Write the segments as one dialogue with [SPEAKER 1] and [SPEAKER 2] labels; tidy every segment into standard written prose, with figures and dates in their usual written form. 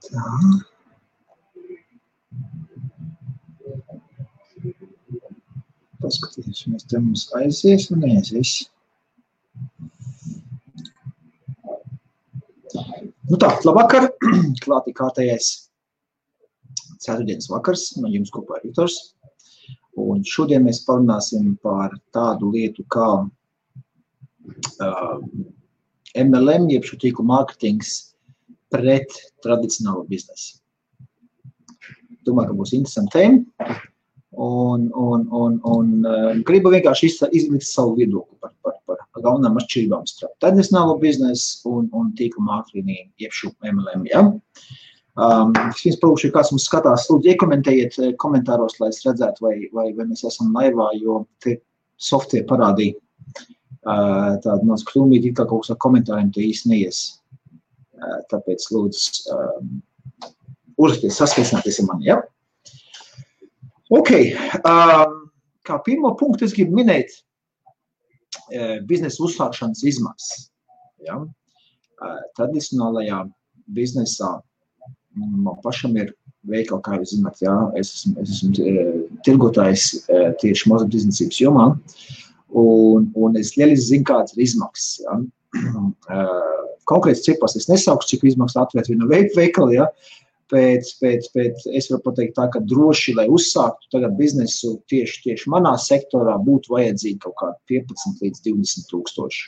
[SPEAKER 1] Tā. Paskatīsimies, te mums aizies un neaizies. Nu tā, labvakar, klātī kārtējais ceturtdienas vakars, no jums kopā ir Viktors. Un šodien mēs parunāsim par tādu lietu kā MLM, jeb šo tīklu mārketings pret tradicionālo biznesu. Domāju, ka būs interesanti tēma. Un gribu vienkārši izlikt savu viedokli par galvenām atšķirībām starp tradicionālo biznesu un tīklu mārketingu, jeb šo MLM. Ja? Vispirms palūkšu, ja kāds mums skatās, lūdzu, iekomentējiet komentāros, lai es redzētu, vai mēs esam laivā, jo te software parādīja tādu maz kļūmīti, kā kaut kas ar komentāriem te īsti neies. Tāpēc, lūdzu, uzrakties, saskaicināties ar mani, ja? Ok, kā pirmo punktu es gribu minēt biznesa uzsākšanas izmaksas. Ja? Tradicionālajā biznesā man pašam ir veikali, kā jūs zināt, ja? Es esmu tirgotājs tieši mazumtirdzniecības jomā, un es lieliski zinu, kādas ir izmaksas. Ja? Konkrēts cipars es nesaukšu, cik izmaksas atvērt vienu veikalu, ja? Bet es varu pateikt tā, ka droši, lai uzsāktu tagad biznesu tieši manā sektorā, būtu vajadzīgi kaut kādi 15 līdz 20 tūkstoši.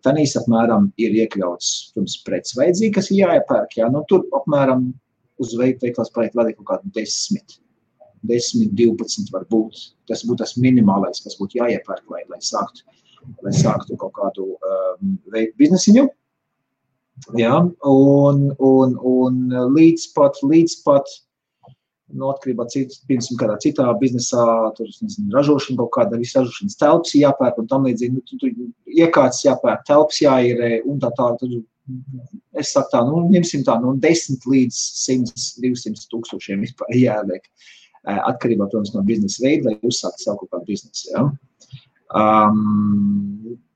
[SPEAKER 1] Tanīs apmēram ir iekļauts, protams, preces vajadzīgi, kas ir jāiepērk, jā, nu tur apmēram uz veikals paliek vēl kaut kādi 10, 12 var būt. Tas būtu tas minimālais, kas būtu jāiepērk, lai sāktu kaut kādu biznesiņu. Ja, un līdz pat no atkarībā piemēram kādā citā biznesā, tur, nezinu, ražošana kaut kāda, visu ražošanas telpas jāpērk un tam līdzīgi, tur iekārtas jāpērk, telpas jāīrē un tā, tad es saku tā, ņemsim tā, 10 līdz 100-200 tūkstošiem vispār jāliek, atkarībā, protams, no biznesa veida, lai uzsāktu savu kaut kādu biznesu, ja.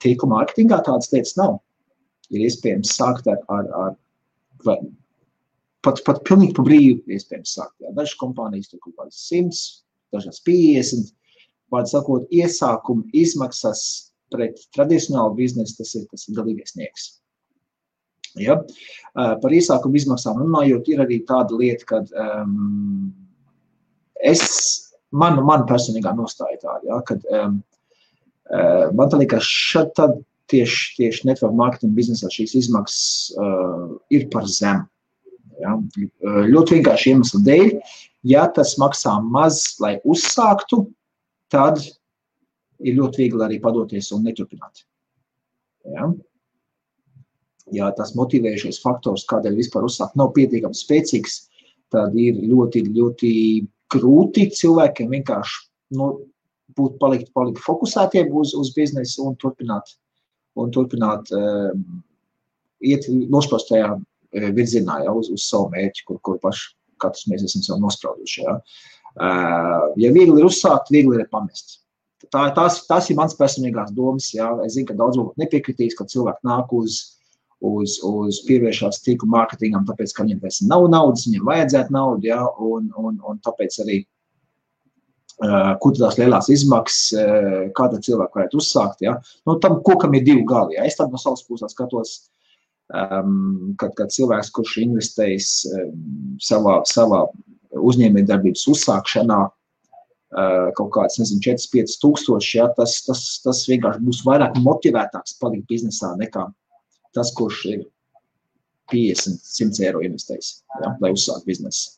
[SPEAKER 1] Tīkla mārketingā tādas lietas nav. Ir iespējams sākt ar pat pilnīgi pa brīvu iespējams sākt. Jā. Dažas kompānijas tur kaut kādas 100, dažas 50. Vārdu sakot, iesākuma izmaksas pret tradicionālu biznesu, tas ir galīgais nieks. Ja? Par iesākuma izmaksām runājot, ir arī tāda lieta, kad man personīgā nostāja tāda, ja? Kad man tā liekas tad tieši network marketing biznesā šīs izmaksas ir par zemu. Ja? Ļoti vienkārši iemeslu dēļ, ja tas maksā maz, lai uzsāktu, tad ir ļoti viegli arī padoties un neturpināt. Ja? Ja tas motivējušais faktors, kādēļ vispār uzsākt, nav pietiekami spēcīgs, tad ir ļoti, ļoti grūti cilvēkiem vienkārši palikt fokusētiem uz biznesu un turpināt iet nosprostajā virzienā, ja, uz savu mērķi, kur paši katrs mēs esam sev nosprauduši. Ja. Ja viegli ir uzsākt, viegli ir pamest. Tās ir mans personīgās domas. Ja. Es zinu, ka daudz varbūt nepiekritīs, ka cilvēki nāk uz pievēršās tīklu mārketingam, tāpēc, ka viņiem pēc nav naudas, viņiem vajadzētu naudu, ja, un tāpēc arī kur tās lielās izmaksas, kāda cilvēka varētu uzsākt, ja? Tam kokam ir divi gali, ja? Es tad no savas puses skatos, kad cilvēks, kurš investējis savā uzņēmējdarbības uzsākšanā kaut kāds, 4-5 tūkstoši, ja? Tas vienkārši būs vairāk motivētāks palikt biznesā nekā tas, kurš ir 50-100 eiro investējis, ja? Lai uzsākt biznesu.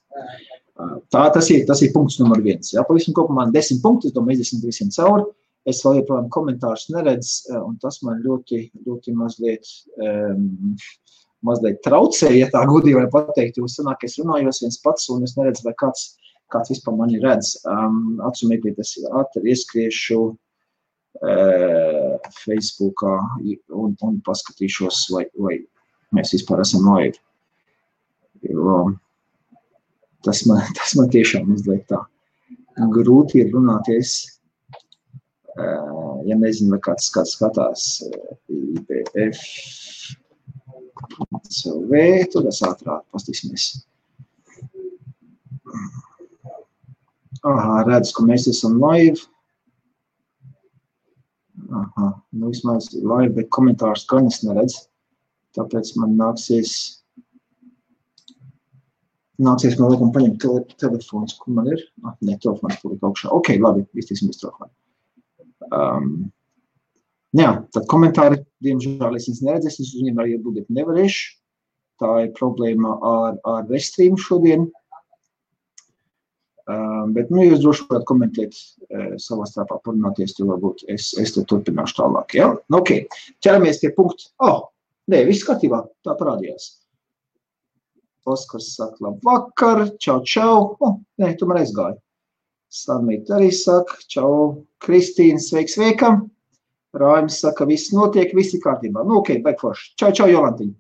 [SPEAKER 1] Tas ir punkts numur 1. Ja? Pavisam kopumā 10 punkti, es domāju, izdesim visiem cauri. Es vēl joprojām komentārus neredzu, un tas man ļoti, ļoti mazliet traucē, ja tā godīgi var pateikt, jo sanāk, es runājos viens pats, un es neredzu, vai kāds vispār mani redz. Atsumēklīt, es ātri ieskriešu Facebookā un paskatīšos, vai mēs vispār esam noiet. Tas man tiešām mazliet tā grūti ir runāties, ja nezinu, vai kāds skatās IPF CV, tur es ātrāk pastīsimies. Aha, redz, ka mēs esam live. Aha, nu vismaz live, bet komentārus gan es neredz. Tāpēc man nāksies man laikam paņemt telefons, kur man ir. Ne, telefons paliek augšā. Ok, labi, iztīsimies telefonu. Jā, tad komentāri, diemžēl es viņus neredzēs, es uz viņiem arī atbildēt nevarēšu. Tā ir problēma ar Restream šodien. Bet, nu, jūs droši varat komentēt savā starpā, parunāties, tad varbūt es te turpināšu tālāk, ja? Ok, ķeramies pie punkta. Nē, viss kārtībā, tā parādījās. Oskars saka, labvakar, čau. Nē, tomēr aizgāju. Slavmīt arī saka, čau, Kristīna, sveika. Raimis saka, viss notiek, viss ir kārtībā. Nu, ok, baig forši. Čau, Jolantiņa.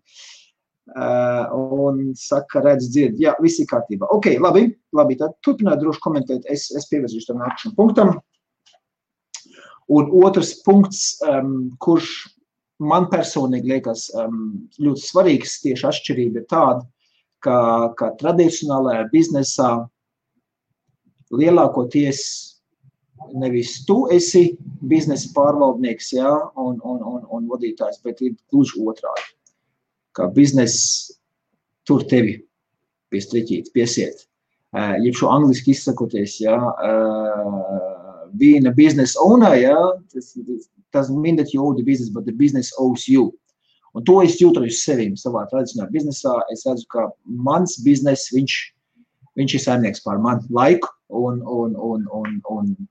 [SPEAKER 1] Un saka, redz, dzird, jā, viss ir kārtībā. Ok, labi, tad turpināt droši komentēt, es pievirzīšu tam nākamajam punktam. Un otrs punkts, kurš man personīgi liekas ļoti svarīgs, tieši atšķirība ir tāda, ka tradicionālajā biznesā lielākoties nevis tu esi biznesa pārvaldnieks, jā, un vadītājs, bet ir gluži otrādi. Kā biznes tur tevi pie striķītes, piesiet. Jeb šo angliski izsakoties, jā, being a business owner, jā, doesn't mean that you owe the business, but the business owes you. Un to es jūtu uz sevīm savā tradicionālā biznesā. Es redzu, ka mans biznes, viņš ir saimnieks pār manu laiku un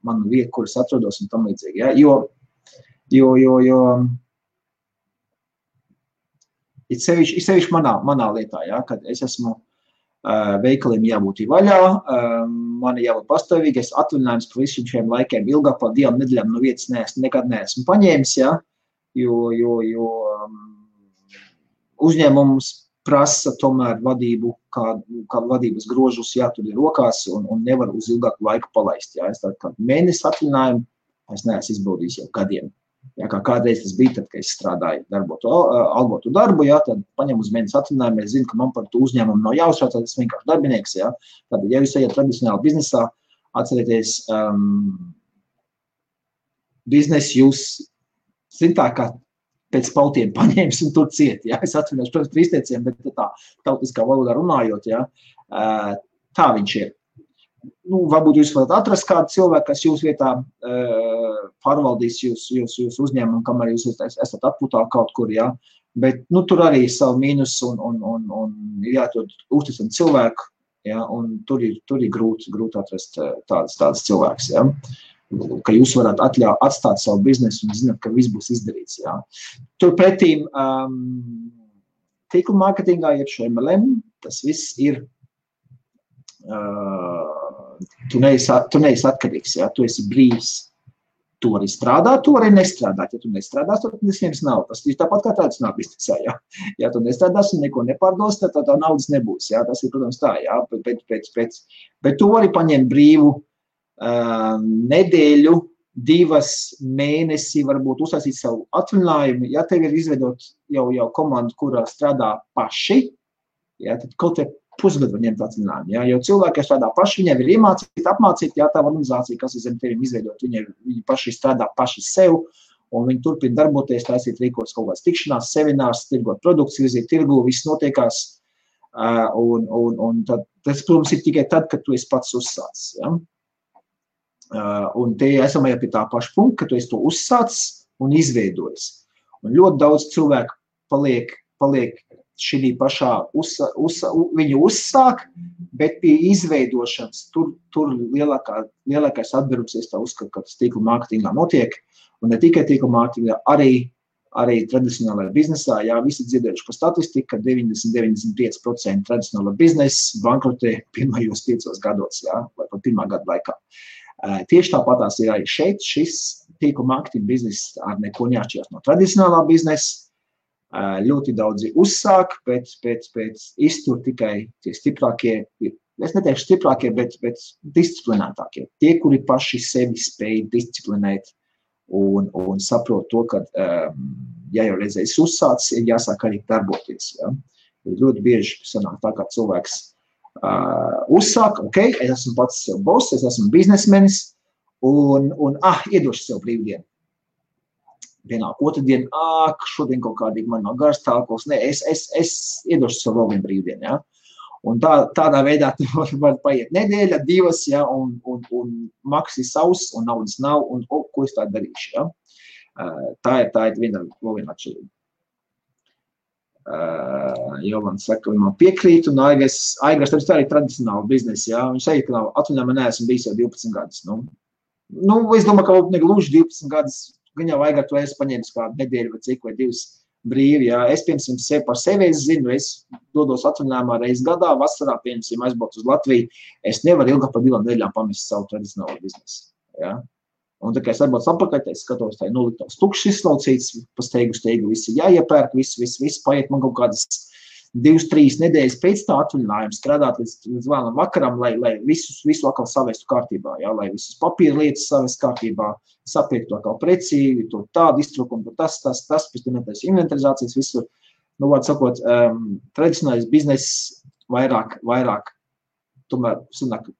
[SPEAKER 1] manu vietu, kuras atrodos un tam līdzīgi, jā, jo ir sevišķi manā lietā, ja, kad es esmu veikaliem jābūt vaļā, man jābūt pastāvīgi, es atvaļinājums par visiem šiem laikiem ilgāk par 2 nedēļām no vietas nekad neesmu paņēmis, ja, jo uzņēmums prasa tomēr vadību, kā vadības grožus jātur rokās un nevar uz ilgāku laiku palaist. Ja. Es tādu mēnesi atvaļinājumu, es neesmu izbaudījis jau gadiem. Ja, kā kādreiz tas bija, tad, kad es strādāju algotu darbu, ja, tad paņem uz mēnesi atvaļinājumu, es zinu, ka man par to uzņēmumu nav jāuztrauc, tad es vienkārši darbinieks. Ja. Tad, ja jūs ejat tradicionāli biznesā, atcerieties, biznes jūs zintā, kā pēc pautiem paņēmis un tur ciet. Ja. Es atvainošu, protams, par izteiciem, bet tā tautiskā valodā runājot, ja, tā viņš ir. Nu, varbūt jūs varat atrast kādu cilvēku, kas jūs vietā pārvaldīs jūs uzņēmumu, kamēr jūs esat atpūtā kaut kur, ja. Bet, nu, tur arī ir savu mīnus un ir jāatrod uzticami cilvēku, ja, un tur ir grūti atrast tādas cilvēks, ja. Ka jūs varat atstāt savu biznesu un zināt, ka viss būs izdarīts, ja. Turpretīm tīkla mārketingā, jeb šo MLM, tas viss ir tu neesi atkarīgs, ja, tu esi brīvs. Tu arī strādā, tu arī nestrādāt. Ja tu nestrādās, tad nesaņems naudu. Tas ir tāpat kā tradicionālā biznesā, ja. Ja tu nestrādās un neko nepārdos, tad tā naudas nebūs, ja. Tas ir, protams, tā, ja. Bet tu arī paņem brīvu nedēļu, 2 mēnesi, varbūt uztaisīt savu atvaļinājumu. Ja tev ir izveidot jau komandu, kurā strādā paši, ja, tad kaut te pusgadu var ņemt atvaļinājumu, ja, jo cilvēki, kas strādā paši, viņiem ir apmācīti, ja tā organizācija, kas ir zem tevim izveidot, viņi paši strādā paši sev, un viņi turpina darboties, taisīt rīkots kaut kāds tikšanās, seminārs, tirgot produkts, virzīt tirgu, viss notiekās, un tas, protams, ir tikai tad, kad tu esi pats uzsācis, ja. Un te esam jau pie tā paša punkta, ka tu esi to uzsācis un izveidojis. Un ļoti daudz cilvēku paliek šī pašā, viņu uzsāk, bet pie izveidošanas tur lielākais atbrums, es tā uzskatu, ka tas tīkla mārketingā notiek, un ne tikai tīkla mārketingā, arī tradicionālajā biznesā, jā, visi dzirdējuši par statistiku, ka 90-95% tradicionāla biznesa bankrotē pirmajos 5 gados, jā, vai pat 1. gada laikā. Tieši tāpatās ir arī šeit, šis tīkla mārketinga bizness ar neko neatšķirās no tradicionālā biznesa. Ļoti daudzi uzsāk, bet iztur tikai tie stiprākie, es neteikšu stiprākie, bet disciplinētākie. Tie, kuri paši sevi spēj disciplinēt un saprot to, ka, ja jau reizēs uzsācis, ir jāsāk arī darboties. Ja? Ļoti bieži sanāk tā, kā cilvēks uzsāk, ok, es esmu pats sev boss, es esmu biznesmenis, un iedošu sev brīvdienu. Pienāk otrdien, šodien kaut kādīgi man nav gars tālkos, ne, es iedošu sev vēl vienu brīvdienu, ja. Un tādā veidā var paiet nedēļa, 2, ja, un maks ir savs, un naudas nav, un ko es tā darīšu, ja. Tā ir viena atšķirība. Jolanta saka, man piekrīt, un Aigars tā arī tradicionāli biznesi, ja. Viņš saka, ka atvaļinājumā neesmu bijis jau 12 gadus. Nu, es domāju, ka negluži 12 gadus, gan jau Aigar, tu esi paņēmis kādu nedēļu vai cik vai 2 brīvi, ja. Es, piemēram, par sevi zinu, es dodos atvaļinājumā reizi gadā, vasarā, piemēram, aizbraukt uz Latviju, es nevaru ilgāk par 2 nedēļām pamest savu tradicionālo biznesu, ja. Un tā kā es atbraucu apakaļ, es skatos, tā ir noliktās tukšs izslaucīts, pa steigu, visi jāiepērk, viss paiet man kaut kādas 2-3 nedēļas pēc tā atvaļinājuma strādāt līdz vēlam vakaram, lai visu atkal savestu kārtībā, ja, lai visas papīra lietas savest kārtībā, sapiektu atkal precīvi, to tādu iztrūkumu, tas, pēc tam netais inventarizācijas visur. Nu, vārds sakot, tradicionālais bizness vairāk, tomēr, sanāk,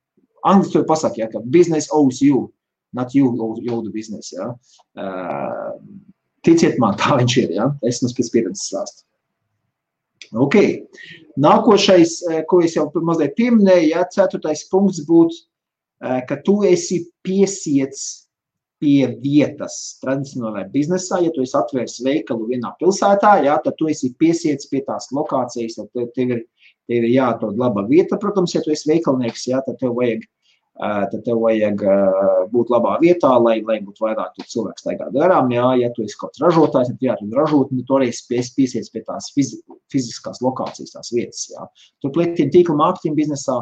[SPEAKER 1] angliski pasaka, ja, ka business owes you, not you owe the business, ja. Ticiet man, tā viņš ir, ja, es mums pēc pieredzes stāstu. Ok, nākošais, ko es jau mazliet pieminēju, ja, 4. punkts būtu, ka tu esi piesiets pie vietas tradicionālajā biznesā, ja tu esi atvērs veikalu vienā pilsētā, ja, tad tu esi piesiets pie tās lokācijas, tad tev ir jāatrod laba vieta, protams, ja tu esi veikalnieks, ja, tad tev vajag būt labā vietā, lai būtu vairāk cilvēku staigāt garām, ja tu esi kaut kāds ražotājs, tad jāatrod ražotni, tu arī piesiec pie tās fiziskās lokācijas, tās vietas, ja. Turpretī tīkla mārketinga biznesā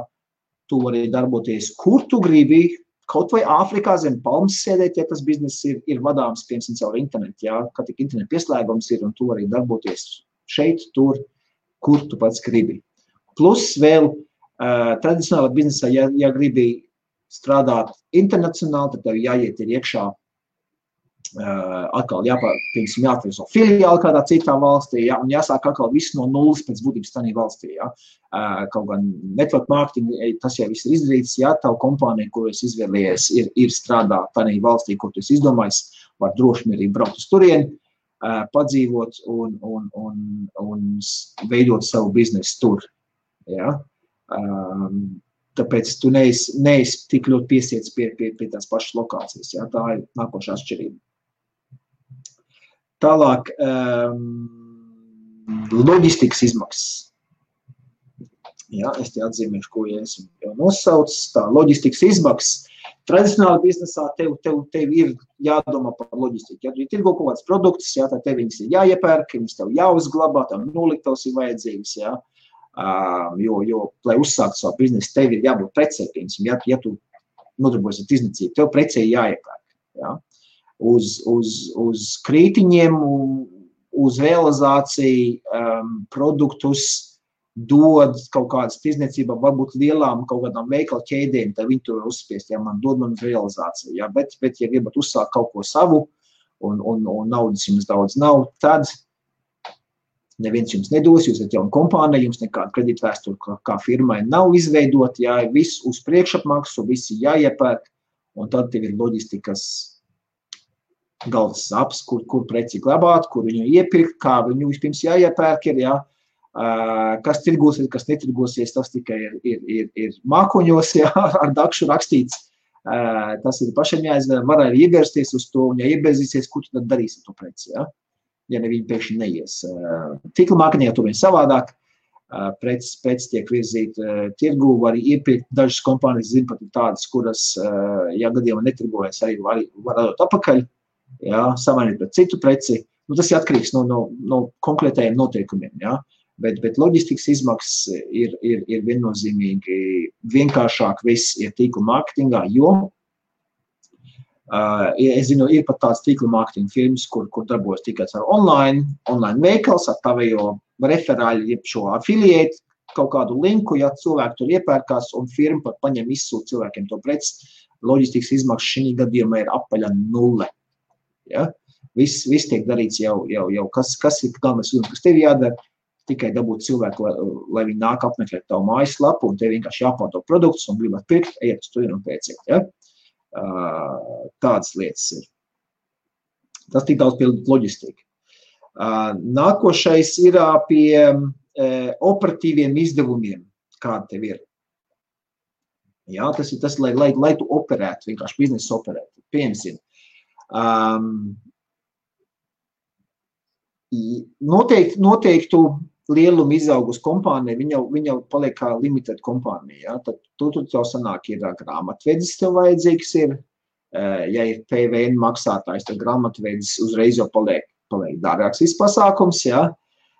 [SPEAKER 1] tu vari darboties, kur tu gribi, kaut vai Āfrikā zem palmas sēdēt, ja tas bizness ir vadāms, piemēram, caur internetu, ja, kad tik internetu pieslēgums ir, un tu vari darboties šeit, tur, kur tu pats gribi. Plus vēl tradicionālā biznesā, ja gribi strādāt internacionāli, tad tev jāiet ir iekšā, atkal jāatver savu filiāli kādā citā valstī, ja, un jāsāk atkal visu no nulles pēc būtības tādā valstī. Ja. Kaut gan network marketing, tas jau viss ir izdarīts, ja tavu kompāniju, ko es izvēlējies, ir strādāt tādā valstī, ko tu esi izdomājis, var droši arī braukt uz turieni, padzīvot un veidot savu biznesu tur. Ja. Tāpēc tu neesi tik ļoti piesiets pie tās pašas lokācijas. Ja? Tā ir nākošā atšķirība. Tālāk, loģistikas izmaksas. Ja, es te atzīmēšu, ko ja esmu jau nosaucis. Tā loģistikas izmaksas. Tradicionāli biznesā tev ir jādomā par loģistiku. Ja tu tirgo kaut kāds produkts, ja, tad tev viņas ir jāiepērk, viņas tev jāuzglabā, tev noliktavas ir vajadzīgas. Ja. Jo, lai uzsāktu savu biznesu, tev ir jābūt precei, ja tu nodarbojies ar tirdzniecību, tev precei jāiepērk. Ja? Uz krītiņiem, uz realizāciju produktus dod kaut kādas tirdzniecībā, varbūt lielām kaut kādām veikala ķēdēm, tad viņi to uzspiest, ja man dod man uz realizāciju. Ja? Bet ja gribat uzsākt kaut ko savu un naudas jums daudz nav, tad neviens jums nedos, jūs esat jauna kompānija, jums nekāda kredītvēsture kā firmai nav izveidot, jā, viss uz priekšapmaksu, visi jāiepērk, un tad tev ir loģistikas galvas saps, kur preci glabāt, kur viņu iepirkt, kā viņu vispirms jāiepērk ir, jā, kas tirgosies, kas netirgosies, tas tikai ir mākoņos, jā, ar dakšu rakstīts, tas ir pašiem jāizvēl, var arī iebirsties uz to, un ja ieberzīsies, ko tu tad darīsi to preci, jā? Ja ne viņi pēkšņi neies. Tīkla mārketingā tur vien savādāk, preces tiek virzīt tirgu, var iepirkt, dažas kompānijas zina pat tādas, kuras, ja gadījumā netirgojas, arī var dot apakaļ, jā, samainīt pret citu preci. Nu, tas ir atkarīgs no konkrētajiem noteikumiem, jā. Bet loģistikas izmaksas ir viennozīmīgi vienkāršāk viss ir tīkla mārketingā, jo es zinu, ir pat tāds tīkla mārketinga firmas, kur darbojas tikai ar online veikals, ar tavējo referāļu, jeb šo affiliate, kaut kādu linku, ja cilvēki tur iepērkās un firma pat paņem izsūt cilvēkiem to preci, loģistikas izmaksas šī gadījumā ir apaļa 0. Ja? Viss tiek darīts jau kas ir galvenais uzdevums, kas tev jādara, tikai dabūt cilvēku, lai viņi nāk apmeklēt tavu mājaslapu, un tev vienkārši jāpārdo produktus un gribat pirkt, ejiet uz turieni un pēciet. Ja? Tādas lietas ir. Tas tik daudz pie loģistika. Nākošais ir pie operatīviem izdevumiem, kāda tev ir. Jā, tas ir tas, lai tu operētu, vienkārši biznesu operētu. Piemēram, noteiktu lielumu izaugus kompānija, viņa jau paliek kā limited kompānija. Ja? Tad tur jau sanāk ir grāmatvedis tev vajadzīgs ir. Ja ir PVN maksātājs, tad grāmatvedis uzreiz jau paliek dārgāks viss pasākums. Ja?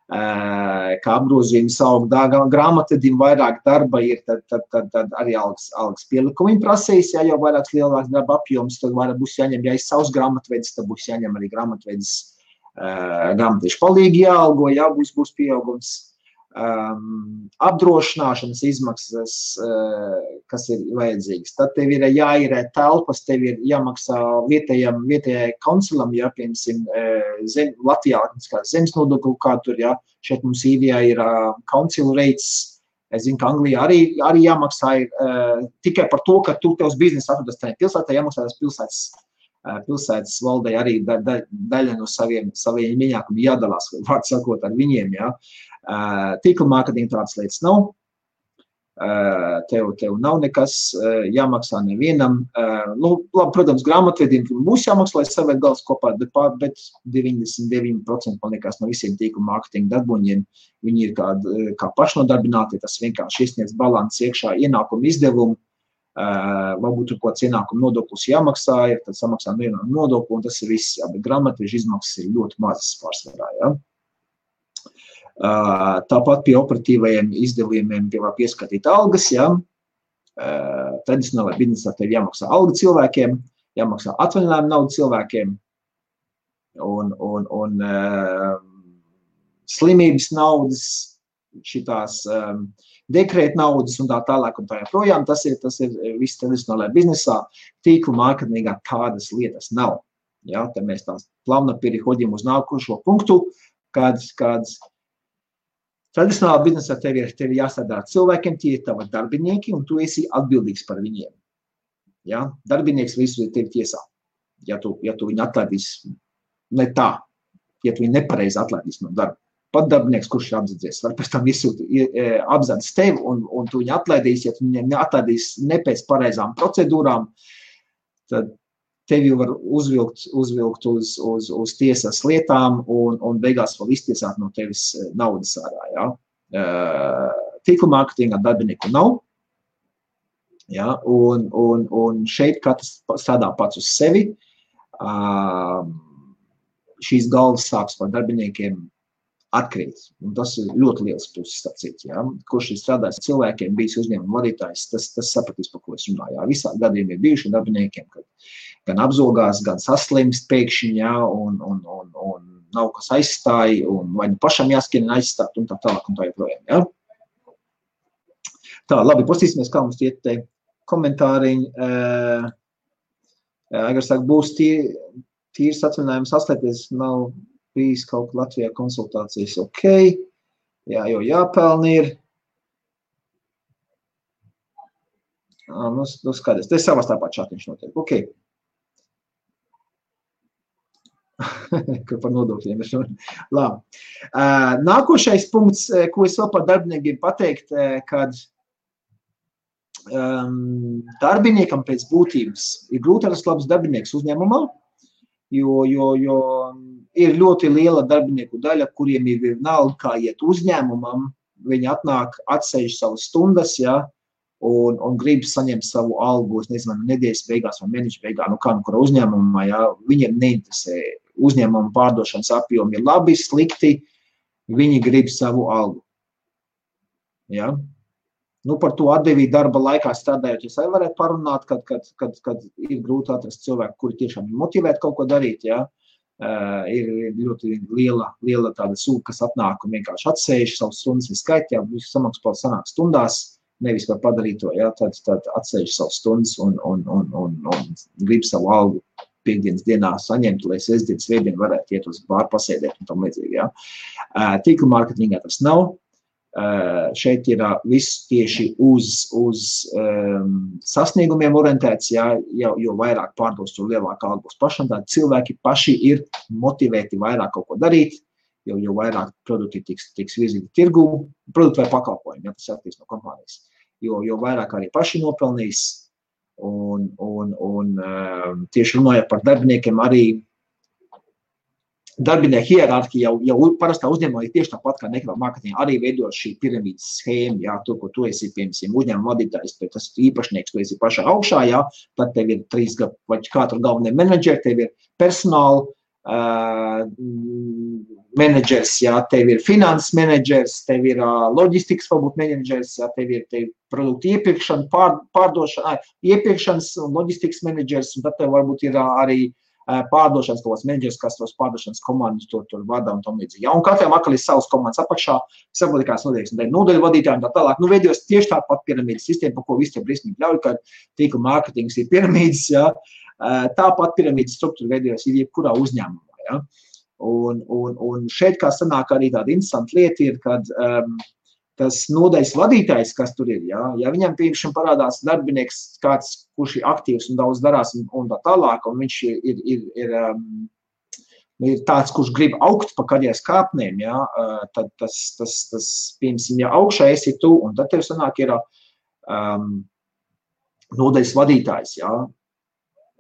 [SPEAKER 1] Kā apgrozījums aug grāmatvedim vairāk darba ir, tad arī algas pielikumi prasīs, ja jau vairāks lielāks darba apjoms, tad vairāk būs jāņem, ja ir savs grāmatvedis, tad būs jāņem arī grāmatvedis grāmatvežu palīgi jāalgo, jā, būs pieaugums. Apdrošināšanas izmaksas, kas ir vajadzīgas. Tad tev ir jāīrē telpas, tev ir jāmaksā vietējai konsulam, ja, piemēram, Latvijā zemes nodokli, kā tur, ja, šeit mums Īrijā ir council rates, es zinu, ka Anglijā arī jāmaksā tikai par to, ka tu tevs biznesa atrodas tajā pilsētā, jāmaksā tās pilsētas valdei arī daļa no saviem ienākumiem jādalās, vārds sakot, ar viņiem, ja. Tīkla mārketinga tādas lietas nav. Tev nav nekas jāmaksā nevienam. Labi, protams, grāmatvedim būs jāmaksā, lai savērt galvas kopā, bet 99% man liekas no visiem tīkla mārketinga darboņiem, viņi ir kā pašnodarbināti, tas vienkārši iesniedz balanss iekšā ienākumu izdevumu. Varbūt tur kāds ienākuma nodoklis jāmaksā, ir, tad samaksā nodokli, un tas ir viss, jā, bet grāmatvežu izmaksas ir ļoti mazas pārsvarā, jā. Tāpat pie operatīvajiem izdevumiem var pieskatīt algas, jā. Tradicionālajā biznesā tev jāmaksā alga cilvēkiem, jāmaksā atvaļinājuma nauda cilvēkiem, un slimības naudas, šitās dekrēta naudas un tā tālāk un tā joprojām, tas ir viss tradicionālajā biznesā, tīkla mārketingā tādas lietas nav. Ja, tad mēs tās plāna переходим uz nākošo punktu, kad tradicionālā biznesā tev ir jāstrādā ar cilvēkiem, tie ir tavi darbinieki, un tu esi atbildīgs par viņiem. Ja, darbinieks visu tevi tiesā. Ja tu viņu atlaidīs ne tā, ja tu viņu nepareizi atlaidīs no darba. Pat darbinieks, kurš ir apzadzies, var pēc tam apzadis tevi un tu viņu atlaidīs, ja tu viņu atlaidīs ne pēc pareizām procedūrām, tad tevi var uzvilkt uz tiesas lietām un beigās vēl iztiesāt no tevis naudas ārā. Ja? Tīkla mārketingā darbinieku nav, ja? Un šeit katrs strādā pats uz sevi. Šīs galvas sāks par darbiniekiem atkrīt. Un tas ir ļoti liels puses sacīt. Ja? Kurš ir strādājis cilvēkiem, bijis uzņēmuma vadītājs, tas sapratīs, par ko es runāju. Ja? Visādi gadījumi ir bijuši darbiniekiem, kad gan apzogās, gan saslimst pēkšņi, ja? un nav kas aizstāja, un vai nu pašam jāskrien aizstāt, un tā tālāk, un tā joprojām. Ja? Tā, labi, pastīsimies, kā mums iet te komentāriņi. Aigars saka, būs tīrs atvaļinājums atslēties, nav bijis kaut kā Latvijā konsultācijas, ok, jā, jo jāpelni ir. Nu skaties, te savā starpā čatiņš notiek, ok. Par nodokļiem ir labi. Nākošais punkts, ko es vēl par darbiniekiem pateikt, kad darbiniekam pēc būtības ir grūti atrast labs darbinieks uzņēmumā, jo ir ļoti liela darbinieku daļa, kuriem ir vienalga, kā iet uzņēmumam, viņi atnāk, atsēž savas stundas, ja, un grib saņemt savu algu, es nezinu, nedēļas beigās vai mēneša beigās, nu kā nu kura uzņēmumā, ja, viņiem neinteresē uzņēmuma pārdošanas apjomi ir labi, slikti, viņi grib savu algu. Ja. Nu, par to atdevību darba laikā strādājot, es arī varētu parunāt, kad ir grūti atrast cilvēku, kuri tiešām ir motivēti kaut ko darīt, ja. Ir ļoti liela tāda sūka, kas atnāk un vienkārši atsēž savus stundas viskaitā, visu samaksu vēl sanāk stundās, nevis var padarīt to, ja, tad atsēž savus stundas un grib savu algu piekdienas dienā saņemt, lai sestdien, svētdien varētu iet uz bāru pasēdēt un tam līdzīgi. Ja. Tīkla mārketingā tas nav. Šeit ir viss tieši uz sasniegumiem orientēts, ja, jo vairāk pārdos, jo lielāka alga būs pašam. Tādi cilvēki paši ir motivēti vairāk kaut ko darīt, jo vairāk produkti tiks virzīti tirgū, produkti vai pakalpojumi, ja tas attīst no kompānijas. Jo vairāk arī paši nopelnīs. Un tieši runājot par darbiniekiem, arī darbinieku hierarhija jau parastā uzņēmumā ir tieši tāpat kā nekādā mārketingā arī veidot šī piramīdas schēma, jā, to, ko tu esi, piemēram, uzņēmuma vadītājs, bet tas īpašnieks, tu esi pašā augšā, jā, tad tev ir 3 vai 4 galvenie menedžeri, tev ir personāla menedžers, jā, tev ir finanses menedžers, tev ir loģistikas varbūt menedžers, jā, tev ir produktu iepirkšana, iepirkšanas un loģistikas menedžers, un tad tev varbūt ir arī pārdošanas kaut kāds menedžers, kas tos pārdošanas komandus tur vada un tam līdzīgi. Ja, un katram atkal ir savas komandas apakšā, saprotikās notieks, un nodaļu vadītāji un tā tālāk. Nu, veidos tieši tāpat piramīdas sistēma, par ko visi tie briesmīgi ļauj, ka tīkla mārketings ir piramīdas, ja. Tāpat piramīdas struktūra veidos ir jebkurā uzņēmumā. Ja. Un šeit kā sanāk arī tāda interesanta lieta ir, kad tas nodaļas vadītājs, kas tur ir, ja viņam piemēram parādās darbinieks kāds, kurš ir aktīvs un daudz darās un tā tālāk, un viņš ir tāds, kurš grib augt pa karjeras kāpnēm, ja, tad tas piemēram, ja augšā esi tu, un tad tev sanāk ir nodaļas vadītājs, ja,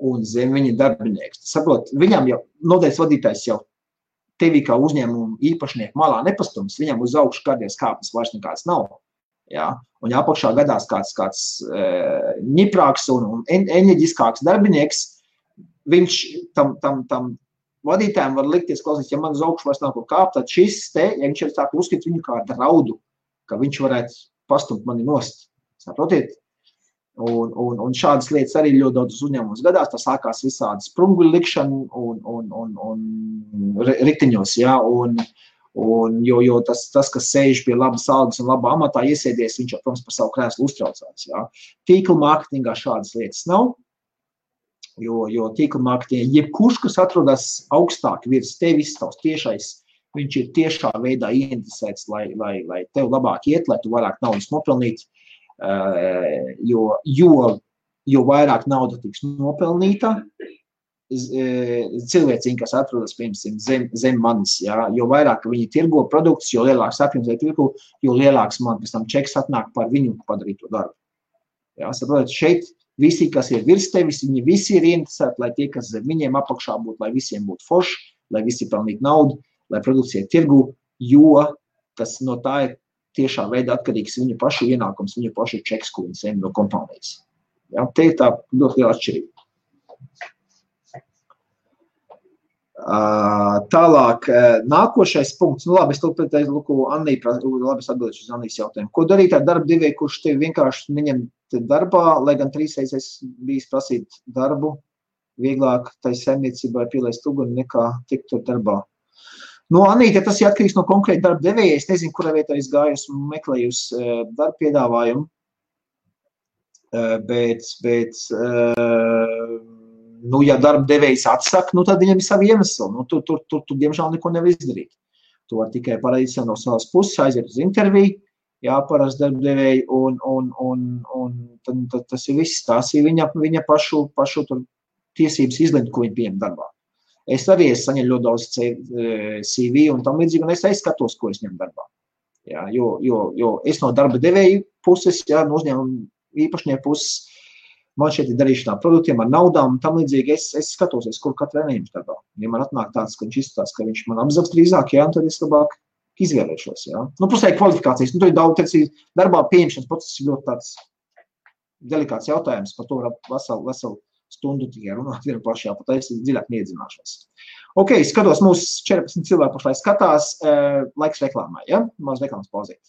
[SPEAKER 1] un zem viņa darbinieks. Saprot, viņam jau nodaļas vadītājs jau tevi kā uzņēmumu īpašnieku malā nepastums, viņam uz augšu karjeras kāpnes vairs nekāds nav. Ja? Un ja apakšā gadās kāds ņiprāks un enerģiskāks darbinieks, viņš tam vadītājiem var likties, klausīt, ja man uz augšu vairs nav ko kāpt, tad šis te, ja viņš ir tā, uzskata viņu kā draudu, ka viņš varētu pastumt mani nost. Saprotiet? Un šādas lietas arī ļoti daudz uzņēmumus gadās, tas sākās visādi sprunguļu likšana un riktiņos, ja, jo tas, kas sēž pie labas algas un labā amatā iesēdies, viņš jau, protams, par savu krēslu uztraucās, ja. Tīkla mārketingā šādas lietas nav, jo tīkla mārketingā jebkurš, kas atrodas augstāk virs tevis, tavs tiešais, viņš ir tiešā veidā ieinteresēts, lai tev labāk iet, lai tu vairāk naudas nopelnīt, jo vairāk nauda tiks nopelnīta, cilvēciņi, kas atrodas, piemēram, zem manis, ja, jo vairāk viņi tirgo produktus, jo lielāks apjoms vai tirgo, jo lielāks man pēc tam čeks atnāk par viņu padarīto darbu. Ja, saprotat, šeit visi, kas ir virs tevis, viņi visi ir ieinteresēti, lai tie, kas zem viņiem apakšā būtu, lai visiem būtu forši, lai visi pelnītu naudu, lai produkcija tirgu, jo tas no tā ir tiešā veidā atkarīgs viņu pašu ienākums, viņu pašu čeks, ko viņi saņem no kompānijas. Ja, te ir tā ļoti liela atšķirība. Tālāk, nākošais punkts, nu labi, es atbildēšu uz Annijas jautājumu. Ko darīt ar darba devēju, kurš tevi vienkārši neņem darbā, lai gan 3 reizes bijis prasīt darbu, vieglāk tai saimniecībai pielaist uguni nekā tikt tur darbā? Nu, Anīte, tas ir atkarīgs no konkrēta darba devēja. Es nezinu, kurā vietā es gāju, esmu meklējusi darba piedāvājumu, bet nu, ja darba devējs atsaka, nu, tad viņam ir savi iemesli. Nu, tur diemžēl neko nevar izdarīt. Tu vari tikai parādīt no savas puses, aiziet uz interviju, jāparasti darba devēji, un tad tas ir viss. Tās ir viņa pašu tur tiesības izlemt, ko viņi pieņem darbā. Es arī saņemu ļoti daudz CV un tam līdzīgi, un es skatos, ko es ņemu darbā. Jā, jo es no darba devēju puses, jā, no uzņēmuma īpašnieku puses, man šeit ir darīšanā produktiem ar naudām un tam līdzīgi, es skatos, kur katru neņems darbā. Ja man atnāk tāds, ka viņš izskatās, ka viņš man apzags drīzāk, jā, tad es labāk izvēlēšos, jā. Nu, pusēji kvalifikācijas, nu, tur ir daudz, darbā pieņemšanas process ir ļoti tāds delikāts jautājums, par to var veselu stundu tikai runāt vienu pašā, pat es dziļāk neiedzināšos. Ok, skatos, mūsu 14 cilvēku pašlaik skatās, laiks reklāmai, ja? Maz reklāmas pauzīt.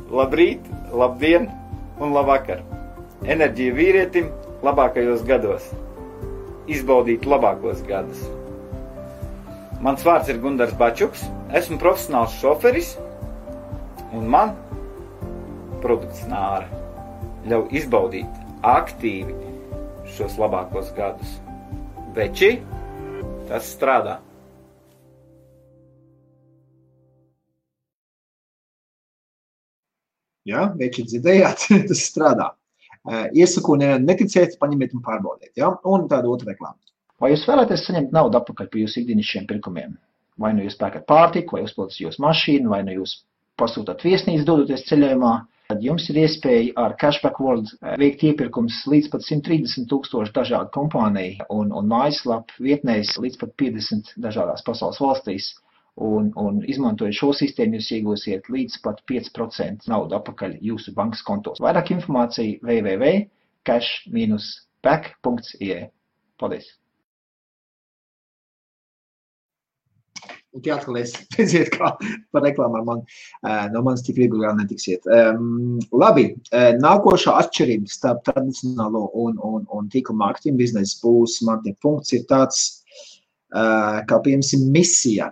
[SPEAKER 2] Labrīt, labdien un labvakar. Enerģija vīrietim labākajos gados. Izbaudīt labākos gadus. Mans vārds ir Gundars Bačuks, esmu profesionāls šoferis, un man produkts Nāra ļauj izbaudīt aktīvi šos labākos gadus. Veči, tas strādā.
[SPEAKER 1] Jā, veči dzirdējāt, tas strādā. Iesaku neticiet, paņemiet un pārbaudiet. Ja? Un tāda otra reklāma. Vai jūs vēlaties saņemt naudu atpakaļ par jūsu ikdienišķiem pirkumiem? Vai nu jūs pērkat pārtiku, vai uzpildat jūsu mašīnu, vai nu jūs pasūtat viesnīcu dodoties ceļojumā, tad jums ir iespēja ar Cashback World veikt iepirkums līdz pat 130,000 dažādu kompāniju un mājaslapu vietnēs līdz pat 50 dažādās pasaules valstīs. Un izmantojot šo sistēmu, jūs iegūsiet līdz pat 5% naudu atpakaļ jūsu bankas kontos. Vairāk informācija www.cash-back.ie. Paldies! Un tie atkal redziet, kā par reklāmu ar mani. No manis tik viegli vēl netiksiet. Labi, nākošā atšķirība starp tradicionālo un tīkla mārketinga biznesu būs, man tie punkts ir tāds, kā piemēram misija.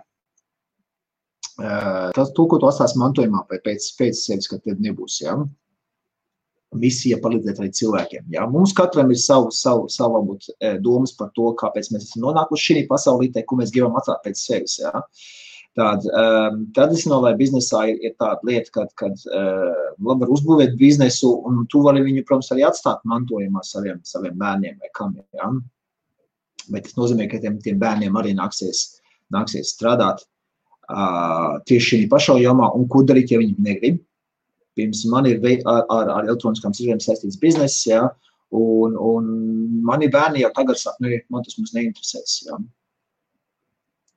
[SPEAKER 1] Tas, ko tu atstās mantojumā pēc sevis, kad tev nebūs, ja? Misija palīdzēt arī cilvēkiem. Ja? Mums katram ir savu varbūt, domas par to, kāpēc mēs esam nonākuši šī pasaulītē, ko mēs gribam atstāt pēc sevis. Ja? Tradicionālajā biznesā ir tāda lieta, kad labi var uzbūvēt biznesu, un tu vari viņu, protams, arī atstāt mantojumā saviem bērniem vai kam. Ja? Bet tas nozīmē, ka tiem bērniem arī nāksies strādāt tieši šī pašā jomā, un ko darīt, ja viņi negrib. Pirms man ir ar elektroniskām sižiem saistīts bizness, ja, un mani bērni jau tagad saka, man tas mums neinteresēs. Ja.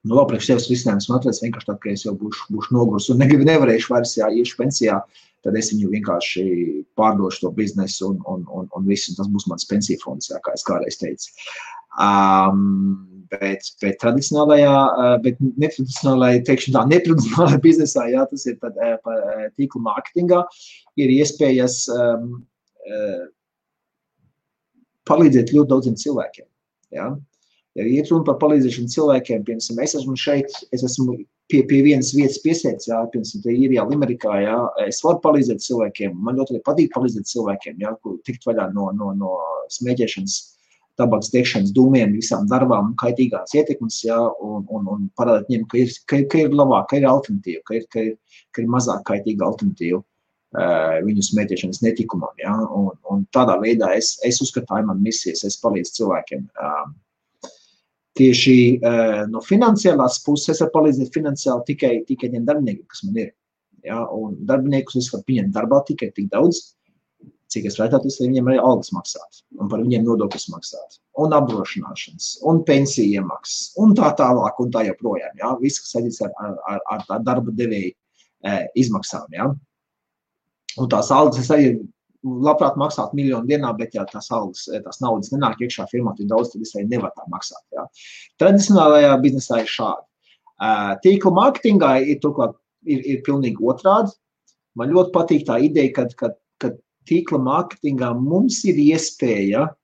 [SPEAKER 1] Nu, vēl priekš sevis risinājums man atvērs vienkārši tā, ka es jau būšu nogurs un nevarēšu vairs, ja iešu pensijā, tad es viņu vienkārši pārdošu to biznesu un visu, un tas būs mans pensiju fonds, ja, kā es kādreiz teicu. Bet netradicionālajā, teikšu tā, netradicionālajā biznesā, jā, tas ir par tīkla mārketingā, ir iespējas palīdzēt ļoti daudziem cilvēkiem. Ja? Ja iet runa par palīdzēšanu cilvēkiem, piemēram, es esmu šeit, es esmu pie vienas vietas piesēdz, jā, piemēram, te Īrijā, Limerikā, jā, es varu palīdzēt cilvēkiem, man ļoti arī patīk palīdzēt cilvēkiem, jā, kur tikt vaļā no smēķēšanas, tabaks tiekšanas dūmiem, visām darbām un kaitīgās ietekmes, ja, un parādīt viņiem, ka ir labāk, ka ir alternatīva, ka ir mazāk kaitīga alternatīva viņu smēķēšanas netikumam. Ja, un tādā veidā es uzskatāju man misijas, es palīdzu cilvēkiem. Tieši no finansiālās puses es varu palīdzēt finansiāli tikai tiem darbiniekiem, kas man ir. Ja, un darbiniekus es varu pieņemt darbā tikai tik daudz, cik es varētu, lai viņiem arī algas maksāt, un par viņiem nodokļus maksāt, un apdrošināšanas, un pensiju iemaksas, un tā tālāk, un tā joprojām, ja? Viss, kas saistīts ar tā darba devēju izmaksām, ja? Un tās algas es arī labprāt maksāt 1 miljonu dienā, bet ja tās naudas nenāk iekšā firmā, tik daudz, tad es arī nevaru tā maksāt, ja? Tradicionālajā biznesā ir šādi. Tīkla mārketingā ir pilnīgi otrādi. Man ļoti patīk tā ideja, kad tīkla mārketingā mums ir iespēja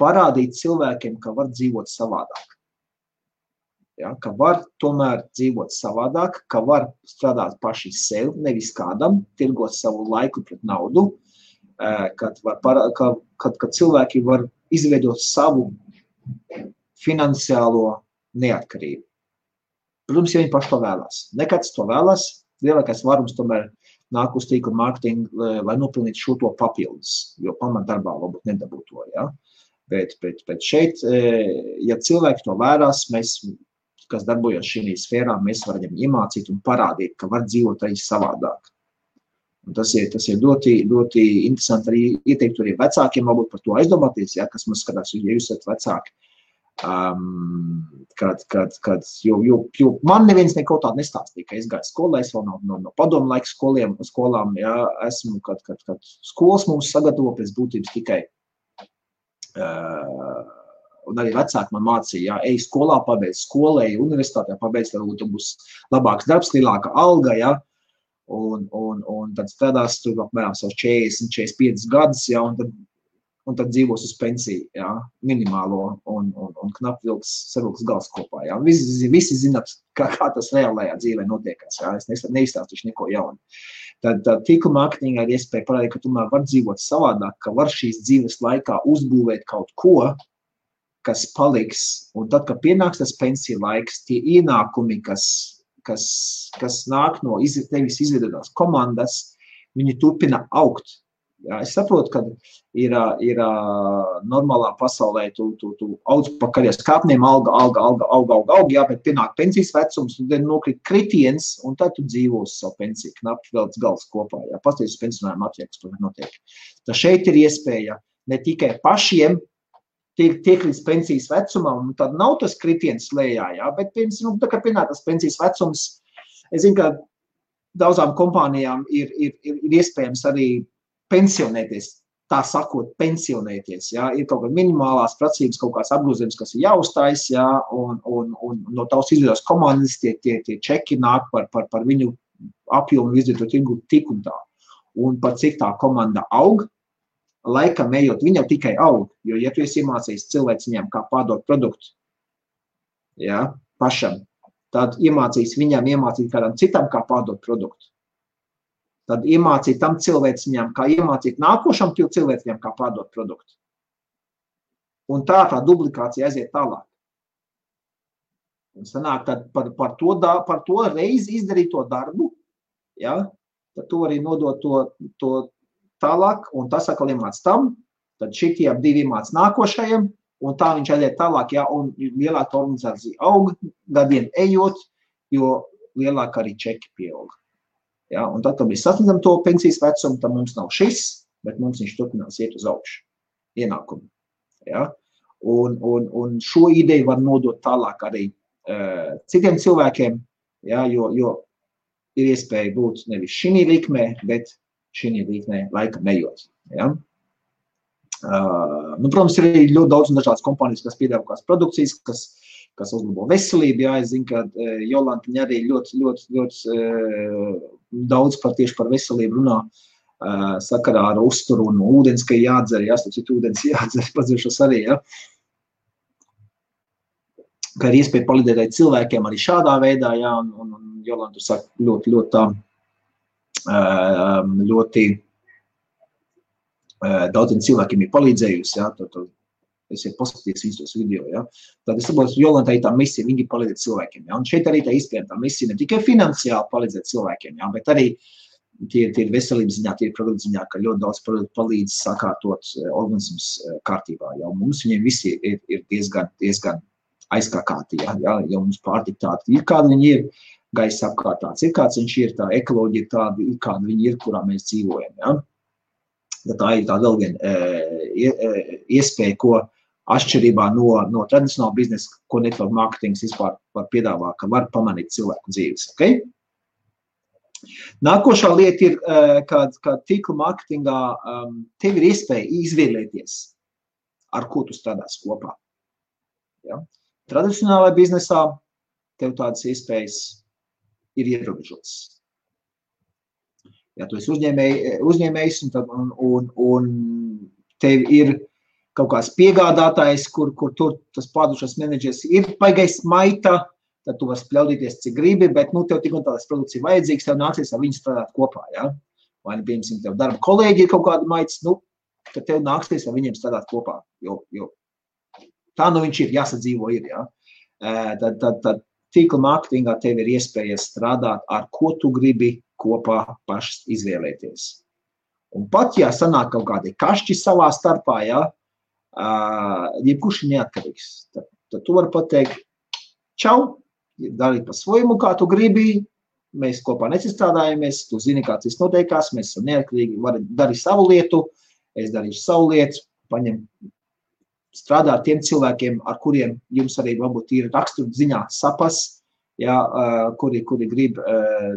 [SPEAKER 1] parādīt cilvēkiem, ka var dzīvot savādāk. Ja, ka var tomēr dzīvot savādāk, ka var strādāt paši sev, nevis kādam, tirgot savu laiku pret naudu, kad cilvēki var izveidot savu finansiālo neatkarību. Protams, ja viņi paši to vēlās. Nekāds to vēlās, lielākais varums tomēr nāk uz tīkla mārketingu, lai nopilnītu šo to papildus, jo pamatdarbā varbūt nedabūtu to, ja? Bet šeit, ja cilvēki to vērās, mēs, kas darbojas šī sfērā, mēs varam iemācīt un parādīt, ka var dzīvot arī savādāk. Un tas ir ļoti interesanti arī ieteikt arī vecākiem, varbūt par to aizdomāties, ja, kas mums skatās, ja jūs esat vecāki. Jo man neviens neko tādu nestāstīja, ka es gāju skolā, es vēl no padomu laika skolām, ja, esmu, kad skolas mums sagatavo pēc būtības tikai, un arī vecāki man mācīja, ja, ej skolā, pabeidz skolu, ej universitātē, pabeidz, varbūt būs labāks darbs, lielāka alga, ja, un tad strādās tur apmēram savus 40-45 gadus, ja, un tad un tad dzīvos uz pensiju, jā, minimālo un knapi savilks gals kopā, jā. Visi zināt, kā tas reālajā dzīvē notiekās, jā, es neizstāstīšu neko jaunu. Tad tīkla mārketingā ir iespēja parādīt, ka tomēr var dzīvot savādāk, ka var šīs dzīves laikā uzbūvēt kaut ko, kas paliks, un tad, kad pienāks tas pensiju laiks, tie ienākumi, kas nāk no tevis izveidotās komandas, viņi turpina augt. Jā, es saprotu, ka ir normālā pasaulē, tu audz pa karjeras kāpniem, auga, jā, bet pienāk pensijas vecums, un tad nokrīt kritiens, un tad tu dzīvo uz savu pensiju, knapi velc gals kopā, jā, pasties uz pensionājumu attieks, to notiek. Tā šeit ir iespēja ne tikai pašiem tiek līdz pensijas vecumam, un tad nav tas kritiens lejā, jā, bet, piemēram, tā kā pienāk tas pensijas vecums, es zinu, ka daudzām kompānijām ir iespējams arī pensionēties, tā sakot, pensionēties, jā, ir kaut kāda minimālās prasības, kaut kāds apgrozījums, kas ir jāuztais, jā, un no tavas izveidotās komandas tie čeki nāk par viņu apjomu izdarīto tirgu tik un tā. Un par cik tā komanda aug, laikam ejot, viņa tikai aug, jo, ja tu esi iemācījis cilvēciņām, kā pārdot produktu, jā, pašam, tad iemācīt kādam citam, kā pārdot produktu. Tad iemācīt tam cilvēciņām, kā iemācīt nākošam cilvēciņām, kā pārdot produktu. Un tā duplikācija aiziet tālāk. Un sanāk, tad par to reizi izdarīto darbu, ja, tad tu arī nodot to tālāk, un tas atkal iemāc tam, tad šitie divi iemāc nākošajam, un tā viņš aiziet tālāk, ja, un lielāka organizācija aug, gadiem ejot, jo lielāka arī čeki pieaug. Ja, un tad, kad mēs sasniedzam to pensijas vecumu, tad mums nav šis, bet mums viņš turpinās iet uz augšu, ienākumu. Ja? Un šo ideju var nodot tālāk arī citiem cilvēkiem, ja, jo ir iespēja būt nevis šī likmē, bet šī likmē laikam ejot. Ja? Protams, ir ļoti daudz un dažādas kompānijas, kas piedāvā kādas produkcijas, kas uzlabo veselību. Jā, es zinu, ka Jolanta arī ļoti daudz tieši par veselību runā sakarā ar uzturu un ūdens, ka jādzer, jā, citu ūdens jādzer, padziršos arī, jā. Ka ir iespēja palīdzēt cilvēkiem arī šādā veidā, jā, un Jolanta saka ļoti daudziem cilvēkiem ir palīdzējusi, jā, es ir paskatījies viņus tos video, ja. Tad es saprotu, Jolanta ir tā misija, viņi palīdzēt cilvēkiem, ja. Un šeit arī tā izpēr tā misija ne tikai finansiāli palīdzēt cilvēkiem, ja, bet arī tie ir veselības ziņā, tie ir produktu ziņā, ka ļoti daudz palīdz sakārtot organismus kārtībā, ja. Un mums viņiem visi ir diezgan aizkākāti, ja, jo mums pārtika tāda ir, kāda viņi ir, gaisa apkārtāts ir, kāds viņš ir, tā ekoloģija tāda ir, kāda viņi ir, kurā mēs dzīvojam, ja. Tā ir tā vēl viena iespēja, ko atšķirībā no tradicionāla biznesa, ko network marketings vispār var piedāvāt, ka var pamanīt cilvēku dzīves. Okay? Nākošā lieta ir, ka tīkla marketingā tev ir iespēja izvēlēties, ar ko tu strādās kopā. Ja? Tradicionālajā biznesā tev tādas iespējas ir ierobežotas. Ja tu esi uzņēmējs un tev ir kaut kāds piegādātājs, kur tur tas pārdošanas menedžers ir baigais maita, tad tu vari spļaudīties, cik gribi, bet tev tik un tādas produkcija vajadzīgs, tev nācies ar viņu strādāt kopā. Ja? Vai piemēram, tev darba kolēģi ir kaut kāda maitas, tad tev nāksies ar viņiem strādāt kopā. Jo tā viņš ir, jāsadzīvo ir. Ja? Tad tīkla mārketingā tev ir iespēja strādāt, ar ko tu gribi kopā pašas izvēlēties. Un pat, ja sanāk kaut kādi kašķi savā starpā, ja, jebkurš ir neatkarīgs, tad tu vari pateikt, čau, darīt pa svojumu, kā tu gribi, mēs kopā necistrādājamies, tu zini, kāds viss noteikās, mēs esam neatkarīgi, vari darīt savu lietu, es darīšu savu lietu, paņem strādāt tiem cilvēkiem, ar kuriem jums arī varbūt ir rakstura ziņā sapas, ja, kuri grib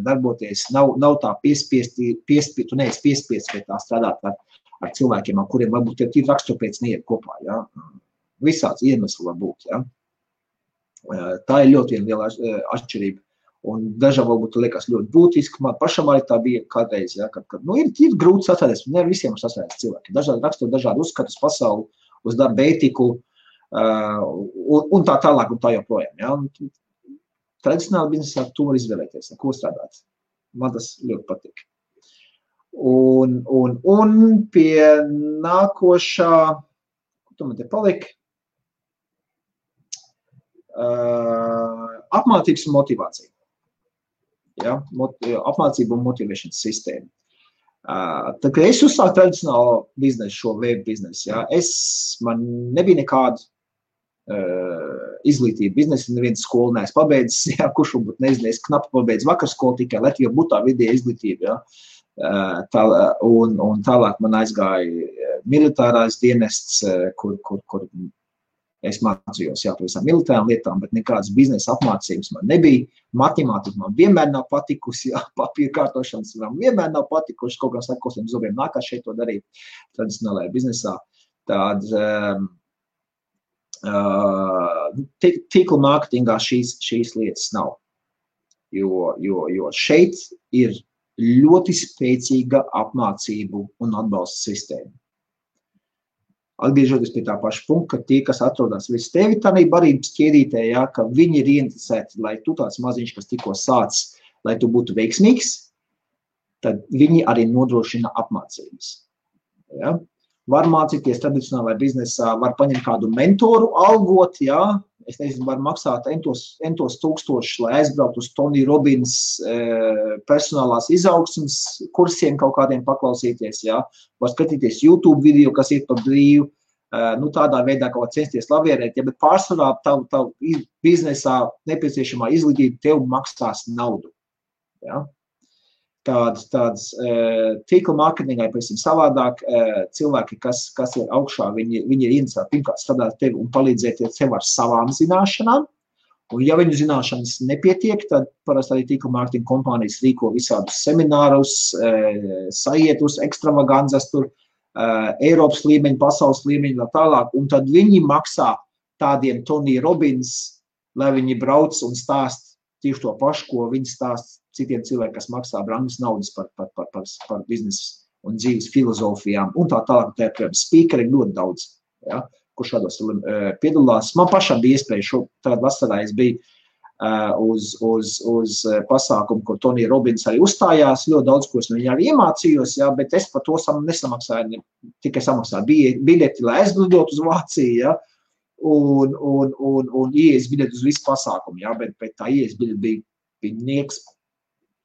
[SPEAKER 1] darboties, nav tā tu neesi piespiesti pie tā strādāt ar cilvēkiem, ar kuriem varbūt ir rakstura pēc neiet kopā. Ja. Visāds iemesli var būt. Ja. Tā ir ļoti liela atšķirība. Un dažām varbūt liekas ļoti būtiski, man pašam arī tā bija kādreiz, ja, kad ir grūti sasvēties, ne visiem sasvēties cilvēki. Dažādi rakstot dažādi uzskatus pasauli, uz darba ētiku, un tā tālāk un tā joprojām. Ja. Un tradicionāli biznesā tu var izvēlēties, ar ko strādāt. Man tas ļoti patīk. Un pie nākošā, ko tu man te palika? Apmācības un motivācija. Ja, apmācību un motivēšanas sistēma. Tā kā es uzsāku tradicionālo biznesu, šo web biznesu, ja, man nebija nekāda izglītība biznesa, neviens skolu neesmu pabeidzis, ja, kurš varbūt nezinu, es knapi pabeidzu vakarskolu, tikai Latvijā būtu tā vidēja izglītība. Ja. Un tālāk man aizgāja militārais dienests, kur es mācījos pavisam militārām lietām, bet nekādas biznesa apmācības man nebija. Matemātika man vienmēr nav patikusi, papīra kārtošanas man vienmēr nav patikuši, kaut kā sakosiem zobiem nākās šeit to darīt tradicionālajā biznesā. Tīkla mārketingā šīs lietas nav, jo šeit ir ļoti spēcīga apmācību un atbalsta sistēma. Atgriežoties pie tā paša punkta, ka tie, kas atrodas virs tevi tādā barības ķēdītē, ja, ka viņi ir ieinteresēti, lai tu tāds maziņš, kas tikko sāc, lai tu būtu veiksmīgs, tad viņi arī nodrošina apmācības. Ja. Var mācīties tradicionālajā biznesā, var paņemt kādu mentoru, algot, ja. Es nezinu, var maksāt entos tūkstošus, lai aizbraukt uz Tony Robbins personālās izaugsmes kursiem kaut kādiem paklausīties, ja. Var skatīties YouTube video, kas iet par brīvu, tādā veidā kaut kā censties lavierēt, ja, bet pārsvarā tavu biznesā nepieciešamā izglītība tev maksās naudu. Ja. Tāds tīkla mārketingā ir pavisam savādāk. Cilvēki, kas ir augšā, viņi ir interesēti pirmkārt strādāt tevi un palīdzēt tev ar savām zināšanām. Un ja viņu zināšanas nepietiek, tad parasti arī tīkla mārketinga kompānijas rīko visādus seminārus, sajietus, ekstravaganzas tur, Eiropas līmeņi, pasaules līmeņi un tālāk. Un tad viņi maksā tādiem Tony Robbins, lai viņi brauc un stāst tieši to pašu, ko viņi stāst citiem cilvēkiem, kas maksā brangas naudas par biznesu un dzīves filozofijām un tā tālāk. Tā speakeri ļoti daudz, ja, kur šādos piedalās. Man pašam bija iespēja tādu vasarā es biju uz pasākumu, kur Tony Robbins arī uzstājās. Ļoti daudz, ko es no viņa arī iemācījos, ja, bet es par to nesamaksāju, tikai samaksāju biļeti, lai aizlidot uz Vāciju, ja, un ieejas biļeti uz visu pasākumu, ja, bet tā ieejas biļeti bija nieks.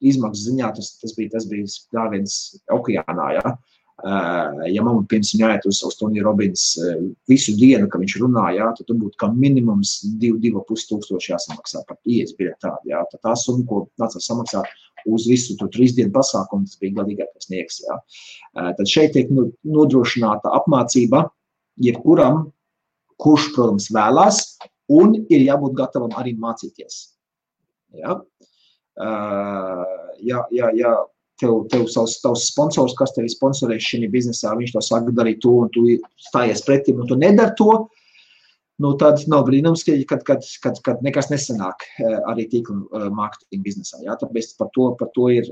[SPEAKER 1] Izmaksas ziņā tas bija dāviens okeānā, ja. Ja man pirms viņa aiet uz Tony Robbins visu dienu, ka viņš runā, ja, tad būtu kā minimums 2,5 tūkstoši jāsamaksā par ieejas biļeti tādu, ja. Tad tā summa, ko nācās samaksāt uz visu 3 dienu pasākumu, tas bija galīgākais nieks, ja. Tad šeit tiek nodrošināta apmācība jebkuram, kurš, protams, vēlās, un ir jābūt gatavam arī mācīties. Ja. Ja tev savs sponsors, kas tevi sponsorē šajā biznesā, viņš to saka darīt to, un tu stājies pretim, un tu nedari to, tad nav brīnums, kad nekas nesanāk arī tīkla mārketinga biznesā. Ja? Tāpēc par to ir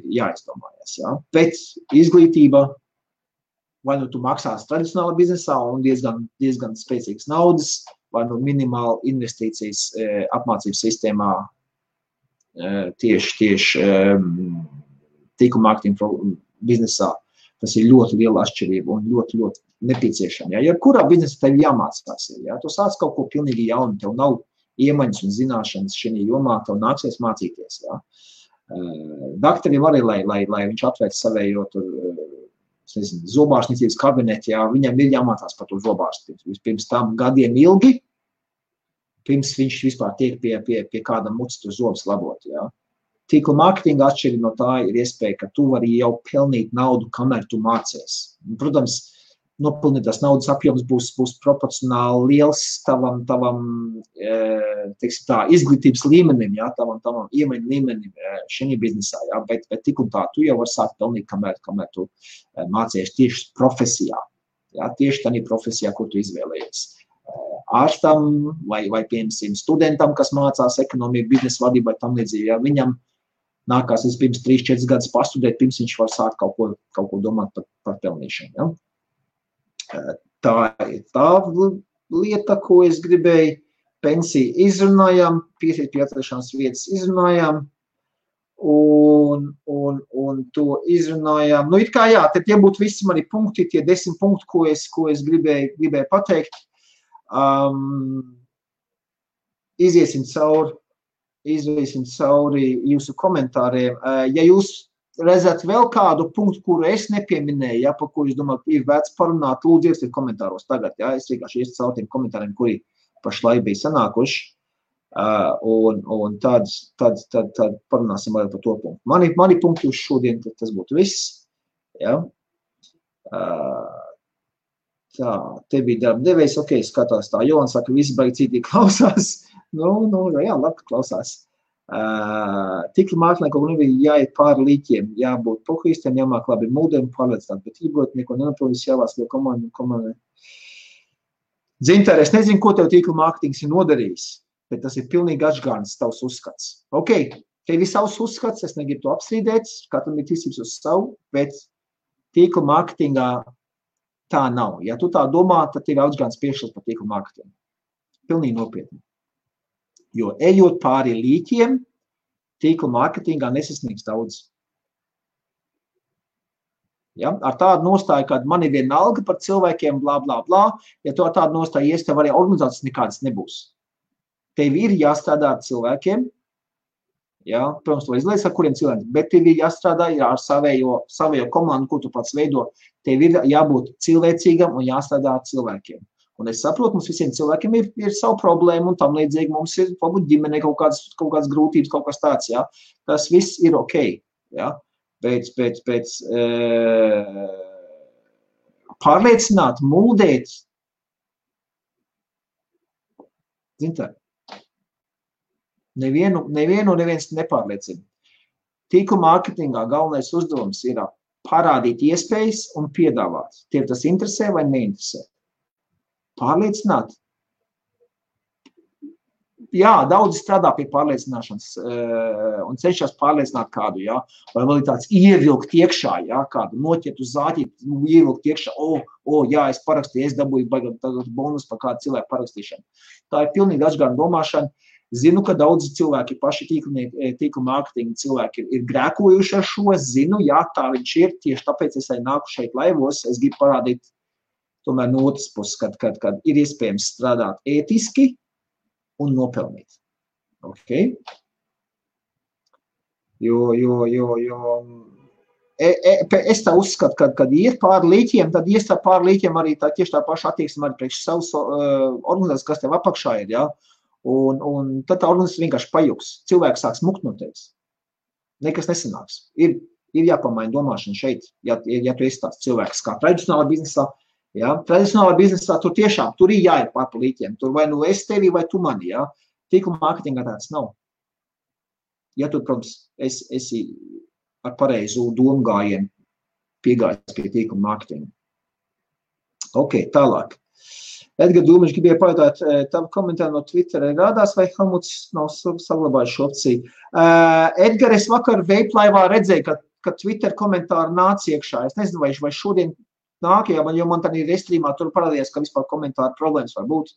[SPEAKER 1] jāizdomājas. Ja? Bet izglītība, vai nu tu maksās tradicionālā biznesā un diezgan spēcīgas naudas, vai nu minimāla investīcijas apmācības sistēmā tieši tīkla mārketinga biznesā. Tas ir ļoti liela atšķirība un ļoti nepieciešama. Ja kurā biznesā tev jāmācās, ja tu sāc kaut ko pilnīgi jaunu, tev nav iemaņas un zināšanas šajā jomā, tev nāksies mācīties. Ja. Daktarim arī, lai viņš atvērt savējo zobārstniecības kabineti, ja, viņam ir jāmācās par to zobārstniecību. Pirms tam gadiem ilgi, pirms viņš vispār tiek pie kāda mucas to zobus labot. Ja. Tīkla mārketinga atšķirība no tā ir iespēja, ka tu vari jau pelnīt naudu, kamēr tu mācies. Protams, nopelnītās naudas apjoms būs proporcionāli liels tavam teiksim tā, izglītības līmenim, ja, tavam iemaņu līmenim šajā biznesā. Ja, bet tik un tā, tu jau vari sākt pelnīt, kamēr tu mācies tieši profesijā. Ja, tieši tādā profesijā, ko tu izvēlējies. ārstam vai piemēram, studentam, kas mācās ekonomiju, biznesa vadību vai tam līdzīgi. Ja viņam nākās pirms 3-4 gadus pastudēt, pirms viņš var sākt kaut ko domāt par pelnīšanu. Ja? Tā ir tā lieta, ko es gribēju. Pensiju izrunājām, piesiet pie atrašanās vietas izrunājām. Un to izrunājām. Nu, it kā jā, tie būtu visi mani punkti, tie 10 punkti, ko es gribēju pateikt. Iziesim cauri jūsu komentāriem. Ja jūs redzat vēl kādu punktu, kuru es nepieminēju, ja, par ko jūs domājat, ir vērts parunāt, lūdzu ierakstiet komentāros tagad. Ja. Es vienkārši iestu cauri tiem komentāriem, kuri pašlaik bija sanākuši. Un tad parunāsim vēl par to punktu. Mani punkti uz šodien, tas būtu viss. Ja? Tā, te bija darba devējs, ok, skatās tā, Johan saka, visi baigi citīgi klausās. Jā, labi, klausās. Tīkla mākslinieki kaut nebija jāiet pāri līķiem, jābūt pohuistiem, jāmāk labi mūdiem, pārliecināt, bet ībrot neko nenaprovis, jāvās liek komandai. Dzintāri, es nezinu, ko tev tīkla mārketings ir nodarījis. Bet tas ir pilnīgi atšķirīgs tavs uzskats. Ok, tev ir savs uzskats, es negribu to apstrīdēt, katram ir tiesības uz savu, bet tīkla mārketingā tā nav. Ja tu tā domā, tad tev ir atšķirīgs priekšstats par tīkla mārketingu. Pilnīgi nopietni. Jo ejot pāri līķiem, tīkla mārketingā nesasniegs daudz. Ja? Ar tādu nostāju, kad man ir vienalga par cilvēkiem, blā, blā, blā, ja tu ar tādu nostāju ies, tev arī organizācijas nekādas nebūs. Tev ir jāstrādā ar cilvēkiem, ja, protams, to izlaies ar kuriem cilvēkiem, bet tev ir jāstrādā ar savējo komandu, ko tu pats veido. Tev ir jābūt cilvēcīgam un jāstrādā ar cilvēkiem. Un es saprotu, mums visiem cilvēkiem ir savu problēmu un tam līdzīgi mums ir varbūt ģimenē kaut kādas grūtības, kaut kas tāds, ja. Tas viss ir ok, ja. Bet pārliecināt, mūdēt, zintā, neviens nepārliecina. Tīkla mārketingā galvenais uzdevums ir parādīt iespējas un piedāvāt. Tiem tas interesē vai neinteresē. Pārliecināt. Jā, daudzi strādā pie pārliecināšanas un cenšas pārliecināt kādu, jā. Vai vēl ir tāds ievilkt iekšā, jā, kādu noķert uz zāķīt, ievilkt iekšā, jā, es parakstīju, es dabūju bonus par kādu cilvēku parakstīšanu. Tā ir pilnīgi atšķirīga domāšana. Zinu, ka daudzi cilvēki, paši tīkla mārketinga cilvēki ir grēkojuši ar šo, zinu, jā, tā viņš ir, tieši tāpēc es arī nāku šeit laivos, es gribu parādīt tomēr no otras puses, kad ir iespējams strādāt ētiski un nopelnīt. Ok? Es tā uzskatu, kad iet pāri līķiem, tad ies tā pāri līķiem arī tieši tā paša attieksme arī priekš savas organizācijas, kas tev apakšā ir, jā. Un tad tā organizācija vienkārši pajuks. Cilvēks sāks mukt no tevis. Nekas nesanāks. Ir jāpamaina domāšana šeit, ja tu esi tāds cilvēks kā tradicionālā biznesā. Ja? Tradicionālā biznesā tur tiešām, tur ir jāiet pār pa līķiem. Tur vai nu es tevi, vai tu mani. Ja? Tīkla mārketingā tāds nav. Ja tu, protams, esi ar pareizu domu gājienu piegājis pie tīkla mārketinga. Ok, tālāk. Edgar Dūmiņš gribēja pajautāt, tavu komentāru no Twittera rādās, vai Helmuts nav saglabājis šo opciju. Edgar, es vakar veiplaivā redzēju, ka Twitter komentāri nāca iekšā. Es nezinu, vai šodien nāk, jo man tādā restrīmā tur parādījās, ka vispār komentāru problēmas var būt.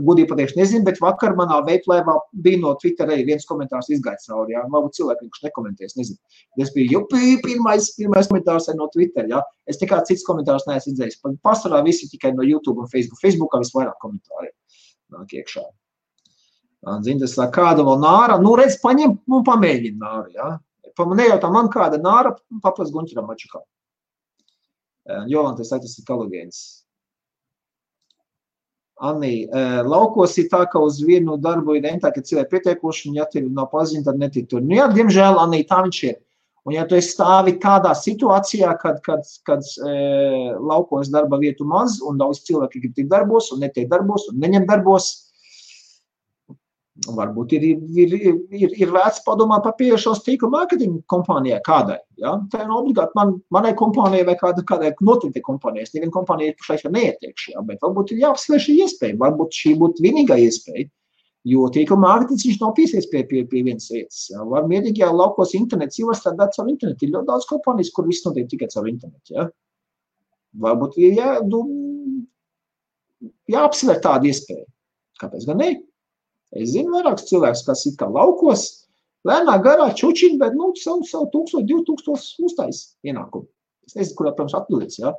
[SPEAKER 1] Gudīgi pateikšu nezinu, bet vakar manā veiplaivā bija no Twitter arī viens komentārs izgājis cauri. Jā. Varbūt cilvēki, kurš nekomentēs, nezinu. Es biju pirmais komentārs no Twitter. Jā. Es nekā cits komentārs neesmu izdzējis. Pastarā visi tikai no YouTube un Facebook. Facebookā visvairāk komentāri nāk iekšā. Zini, tas kāda vēl nāra. Nu, redz, paņem un pamēģina nāru. Jā. Nejautā man kāda nāra, paplas Gunķeram Mačukam. Jovan, tas ir kalogēns. Anī, laukos ir tā, ka uz vienu darbu ir rentā, ka cilvēki pietiekoši, un ja tev nav paziņa, tad netik tur. Nu jā, diemžēl, Anī, tā viņš ir. Un ja tu esi stāvi kādā situācijā, kad laukos darba vietu maz, un daudz cilvēki grib tikt darbos, un netiek darbos, un neņem darbos, Varbūt ir vērts padomāt par pieejošos tīkla mārketinga kompānijai kādai. Ja? Tā nav obligāti manai kompānijai vai kādai noteiktai kompānijai. Es nevienu kompāniju pašlaik neietiekšu, ja? Bet varbūt ir jāapsver šī iespēja. Varbūt šī būtu vienīgā iespēja, jo tīkla mārketings viņš nav piesies pie vienas vietas. Ja? Var mierīgi jau laukos internets, jau var strādāt caur internetu. Ir ļoti daudz kompānijas, kur viss notiek tikai caur internetu. Ja? Varbūt ir jāapsver tāda iespēja. Kāpēc gan ne? Es zinu vairākus cilvēkus, kas ir kā laukos, lēnā garā čučiņi, bet savu 1000, 2000 uztais ienākumu. Es nezinu, kurā, protams, atbildīs, ja?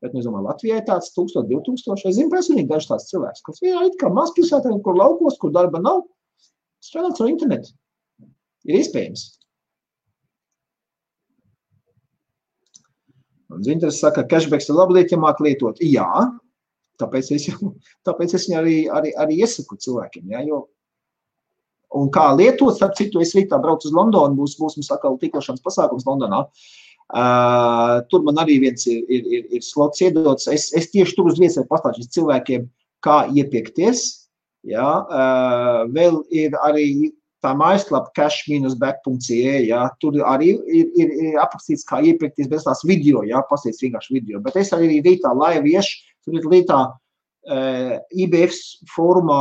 [SPEAKER 1] Bet, es domāju, Latvijai tāds 1000, 2000. Es zinu personīgi dažs tāds cilvēks, kas vienā it kā mazpilsētā, kur laukos, kur darba nav, strādāt ar internetu. Ir iespējams. Un Zinters saka, cashbacks ir labi lieta, ja māk lietot. Jā, tāpēc es viņu arī iesaku cilvēkiem, ja? Jo un kā lietot, starp citu, es rītā braucu uz Londonu, būs mums atkal tīklošanas pasākums Londonā. Tur man arī viens ir slots iedots. Es tieši tur uz vietas pastāstīšu cilvēkiem, kā iepirkties. Ja? Vēl ir arī tā mājaslapa cash-back.ca. Ja? Tur arī ir aprakstīts, kā iepirkties bez tās video, ja? Pastīts vienkārši video. Bet es arī rītā live iešu, tur ir rītā IBF fórumā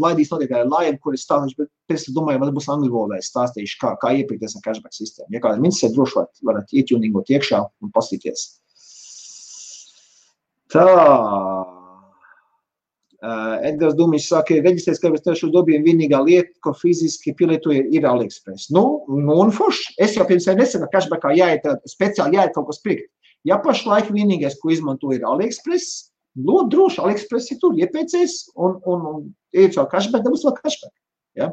[SPEAKER 1] laidīs notiek live, kur es stāstīšu, bet pēc tam domāju, man būs angļu valodā, es stāstīšu, kā iepirkties ar cashback sistēmu. Ja kāda minces droši varat ietuningot iekšā un pastīties. Tā. Edgars Dumiņš saka, reģistrēs, ka es dobījumu vienīgā lieta, ko fiziski pielietoju, ir AliExpress. Un forši. Es jau pirms nesaka, ka cashbackā speciāli jāiet kaut ko pirkt. Ja pašlaik vienīgais, ko izmantoju, ir AliExpress, ļoti droši, AliExpress ir tur, iepēcies un ejiet caur cashback, dabūs vēl cashback. Ja?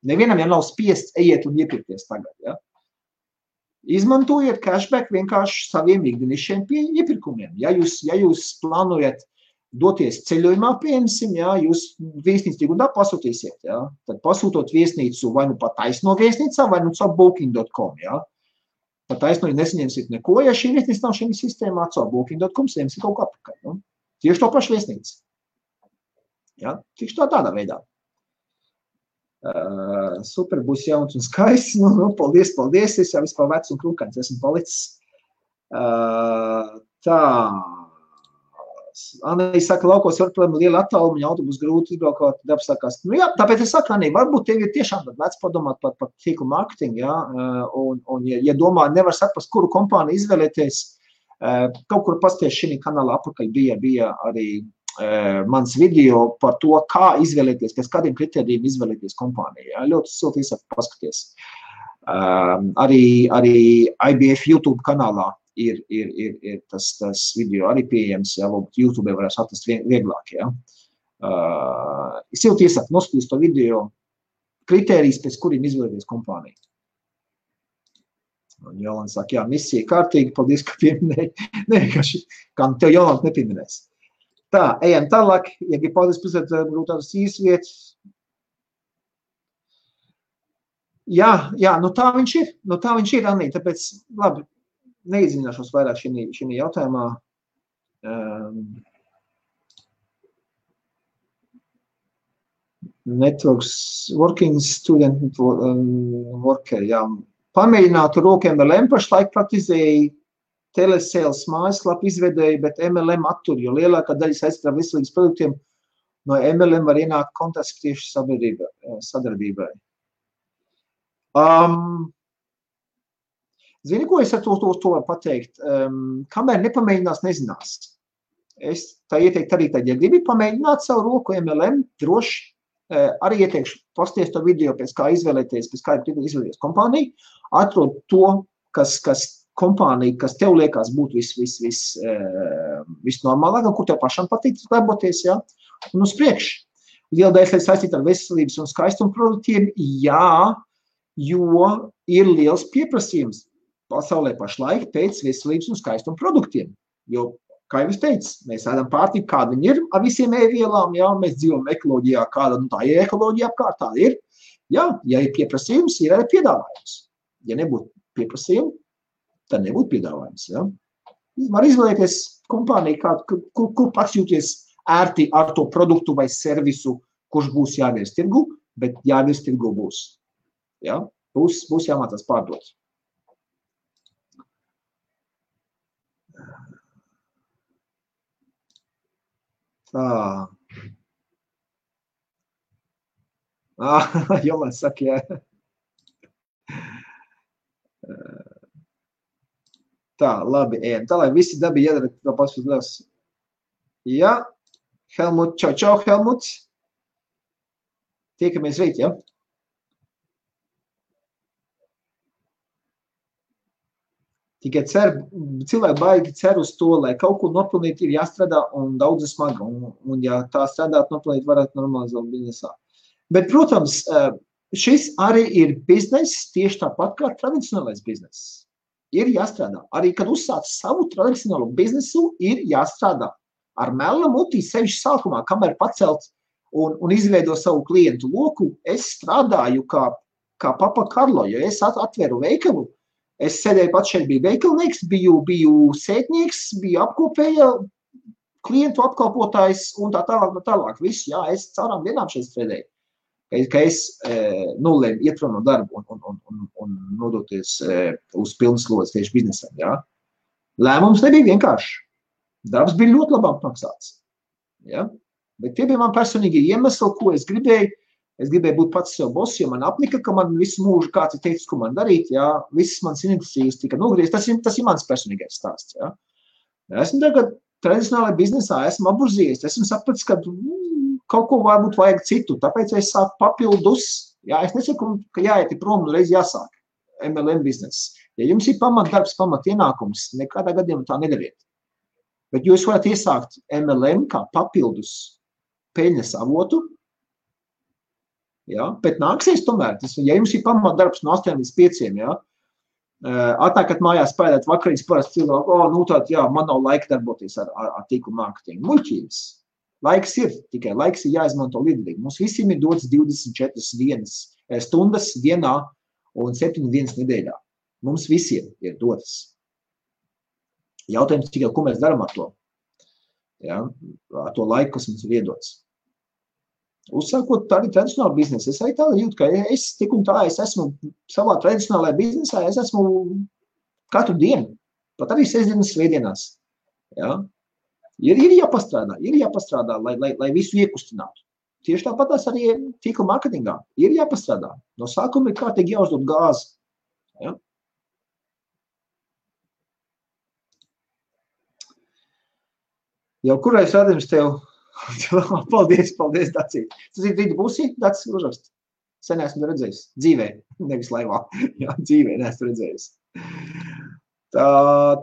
[SPEAKER 1] Nevienam jau nav spiests ejiet un iepirkties tagad. Ja? Izmantojiet cashback vienkārši saviem ikdienišķiem iepirkumiem. Ja jūs plānojat doties ceļojumā, piemēram, ja, jūs viesnīcu tikundā pasūtīsiet. Ja? Tad pasūtot viesnīcu vai nu pat taisno viesnīcā, vai nu caur booking.com. Ja? Pat taisno, ja nesaņemsiet neko, ja šī viesnīca nav šī sistēmā, caur booking.com saņemsiet kaut ko apakaļ. Nu? Tieši to pašu viesnīcu. Ja? Tieši tādā veidā. Super, būs jauns un skaists. Paldies. Es jau vispār vecs un krūkains esmu palicis. Tā. Anī saka, laukos var, protams, liela attāluma, autobus grūti izbraukāt, darbs sākās. Jā, tāpēc es saku, Anī, varbūt tev ir tiešām vērts padomāt par tīklu mārketingu, ja? Un ja domā, nevar saprast, kuru kompāniju izvēlēties, kaut kur pasties šī kanālā apakaļ bija arī mans video par to, kā izvēlēties, pēc kādiem kritērijiem izvēlēties kompāniju. Ja? Ļoti silti iesaku paskaties. Arī IBF YouTube kanālā ir tas video arī pieejams, ja YouTube varēs atrast vieglāk. Ja? Silti iesaku noskatīt to video kritērijas, pēc kuriem izvēlēties kompāniju. Un Jolanta saka, jā, misija kārtīgi, paldies, ka pieminēji. Nē, kā tev Jolanta nepieminēs. Tā, ejam tālāk, ja grib paldies pusēt, varbūt tādas īsas vietas. Jā, tā viņš ir, Anī, tāpēc, labi, neiedzināšos vairāk šī jautājumā. Networks, working student worker, jā. Pamēģinātu roku MLM, pašlaik praktizēju telesales mājaslapu izvedēju, bet MLM attur, jo lielākā daļa saistībā ar veselības produktiem no MLM var ienākt kontakts tieši sadarbībai. Zini, ko es ar to varu pateikt? Kamēr nepamēģinās, nezinās. Es tā ieteiktu arī tad, ja gribi pamēģināt savu roku MLM, droši arī ieteikšu pasties to video, pēc kā izvēlēties, pēc kā izvēlēties kompāniju, atrod to, kas kompānija, kas tev liekas būt visnormālāk, kur tev pašam patīk darboties, ja? Un uz priekšu. Liela daļa saistīta ar veselības un skaistumu produktiem, jā, jo ir liels pieprasījums pasaulē pašlaik pēc veselības un skaistumu produktiem, jo kā jau es teicu, mēs ēdam pārtiku, kāda viņi ir ar visiem ēvielām, jā, mēs dzīvojam ekoloģijā, kāda tā ir ekoloģija apkārt, tā ir. Jā, ja ir pieprasījums, ir arī piedāvājums. Ja nebūtu pieprasījumi, tad nebūtu piedāvājums, jā. Var izvēlēties kompāniju, kur pats jūties ērti ar to produktu vai servisu, kurš būs jāvies tirgu, bet jāvis tirgu būs. Ja? Būs jāmācās pārdot. Tā. Jolēns saka, jā. Tā, labi, ejam. Tā, lai visi dabi iedara to pašu liels. Jā, Helmut, čau, Helmut. Tiekamies rīt, ja? Tikai cilvēki baigi cer uz to, lai kaut ko nopelnīt ir jāstrādā un daudz smaga. Un ja tā strādāt, nopelnīt varētu normalizēt biznesā. Bet, protams, šis arī ir bizness tieši tāpat kā tradicionālais bizness. Ir jāstrādā. Arī, kad uzsāc savu tradicionālo biznesu, ir jāstrādā. Ar melu mutī sevišķi sākumā, kamēr pacelt un izveido savu klientu loku, es strādāju kā Papa Karlo, jo es atveru veikalu. Es sēdēju pats šeit, biju veikalnieks, biju sētnieks, biju apkopēja, klientu apkalpotājs un tā tālāk. Viss, jā, es caurām dienām šeit strādēju. Ka es nolēmu iet prom no darbu un nodoties uz pilnas slodzes tieši biznesam. Ja? Lēmums nebija vienkārši. Darbs bija ļoti labi apmaksāts. Ja? Bet tie bija man personīgi iemesli, ko es gribēju. Es gribēju būt pats sev boss, jo man apnika, ka man visu mūžu kāds ir teicis, ko man darīt. Ja? Visas manas iniciatīvas tika nogrieztas. Tas ir mans personīgais stāsts. Ja? Esmu tagad tradicionālajā biznesā, esmu apburzījies. Esmu sapratis, ka kaut ko varbūt vajag citu, tāpēc es sāku papildus. Jā, es nesaku, ka jāiet prom, reiz jāsāk MLM bizness. Ja jums ir pamatdarbs, pamatienākums, nekādā gadījumā tā nedariet. Bet jūs varat iesākt MLM kā papildus peļņas avotu, jā, bet nāksies tomēr. Ja jums ir pamatdarbs no 8 līdz 5, jā, atnākat mājās spēlēt vakariņas parasti cilvēku, nu tād, jā, man nav laika darboties ar tīklu mārketingu. Muļķības. Laiks ir, tikai laiks ir jāizmanto līdzīgi. Mums visiem ir dots 24 stundas dienā un 7 dienas nedēļā. Mums visiem ir dotas. Jautājums tikai, ko mēs darām ar to? Ja? Ar to laiku, kas mums ir iedots. Uzsākot tādu tradicionālu biznesu, es arī tā jūtu, ka es tik un tā, es esmu savā tradicionālajā biznesā, es esmu katru dienu, pat arī sestdienas, svētdienās. Ja? Ir jāpastrādā, lai visu iekustinātu. Tieši tāpat arī tīkla marketingā. Ir jāpastrādā. No sākuma ir kārtīgi jāuzdod gāzi. Ja? Jau kurais rādījums tev? Paldies, Dacīt. Tas ir rīta būsī, Dacīs uzrakst. Sen esmu redzējis. Dzīvē, nevis laivā. Jā, dzīvē neesmu redzējis. Tā,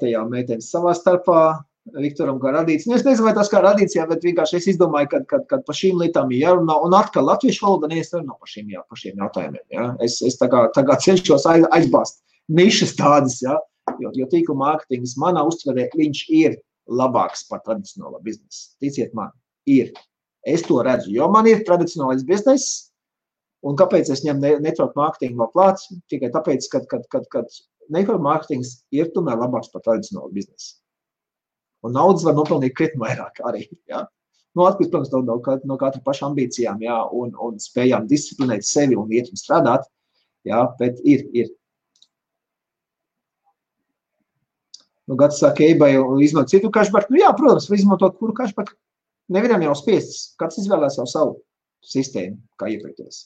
[SPEAKER 1] te jau meitenes savā starpā. Viktoram kā radīts. Es nezinu, vai tas kā radīts, jā, bet vienkārši es izdomāju, kad par šīm lietām ir jārunā. Un atkal latviešu valoda neesarunā par šīm jautājumiem. Jā. Es tā kā cenšos aizbāzt nišas tādas, jā, jo tīkla mārketings manā uztverē, viņš ir labāks par tradicionālo biznesu. Ticiet man, ir. Es to redzu, jo man ir tradicionālais bizness, un kāpēc es ņem network mārketingu vēl klāt? Tikai tāpēc, kad network mārketings ir tomēr labāks par tradicionālo biznesu. Un naudas var nopelnīt krietni vairāk arī. Ja? Nu, atkarīgs, protams, no katra paša ambīcijām, ja? un spējām disciplinēt sevi un iet un strādāt, ja? Bet ir. Nu, Gats saka, eBay izmantot citu cashback. Nu, jā, protams, var izmantot kuru cashback. Nevienam jau spiests. Kāds izvēlēs jau savu sistēmu, kā iepirkties.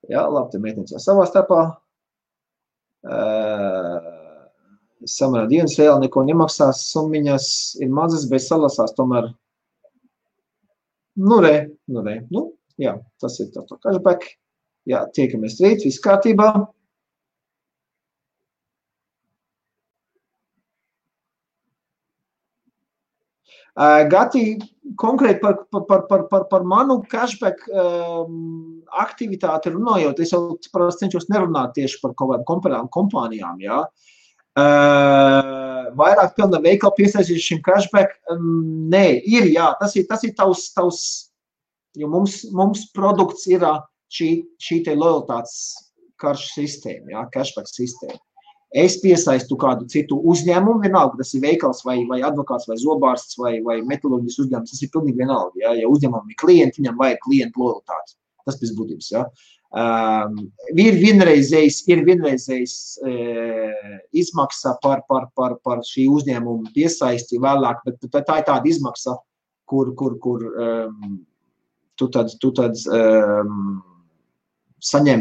[SPEAKER 1] Jā, labi, te meitenes jau savā starpā. Samanā dienas reāli neko nemaksās, summiņas ir mazas, bet salasās tomēr. Nu, jā, tas ir tā cashback. Jā, tiekamies rīt, viss kārtībā. Gati, konkrēti par manu cashback aktivitāti runājot, es jau cenšos nerunāt tieši par kaut kādām kompānijām, jā. Vairāk pilna veikala piesaistīt šim cashback, nē, ir, jā, tas ir tavs, jo mums produkts ir šī te lojalitātes karšu sistēma, jā, cashback sistēma. Es piesaistu kādu citu uzņēmumu, vienalga, tas ir veikals vai advokāts vai zobārsts vai metaloģijas uzņēmums, tas ir pilnīgi vienalga, jā, ja uzņēmumam ir klienti, viņam vajag klientu lojalitāti. tas pēc būtības, ja. Ir vienreizējs izmaksa par šī uzņēmuma piesaisti vēlāk, bet tā ir tāda izmaksa, kur tu tad saņem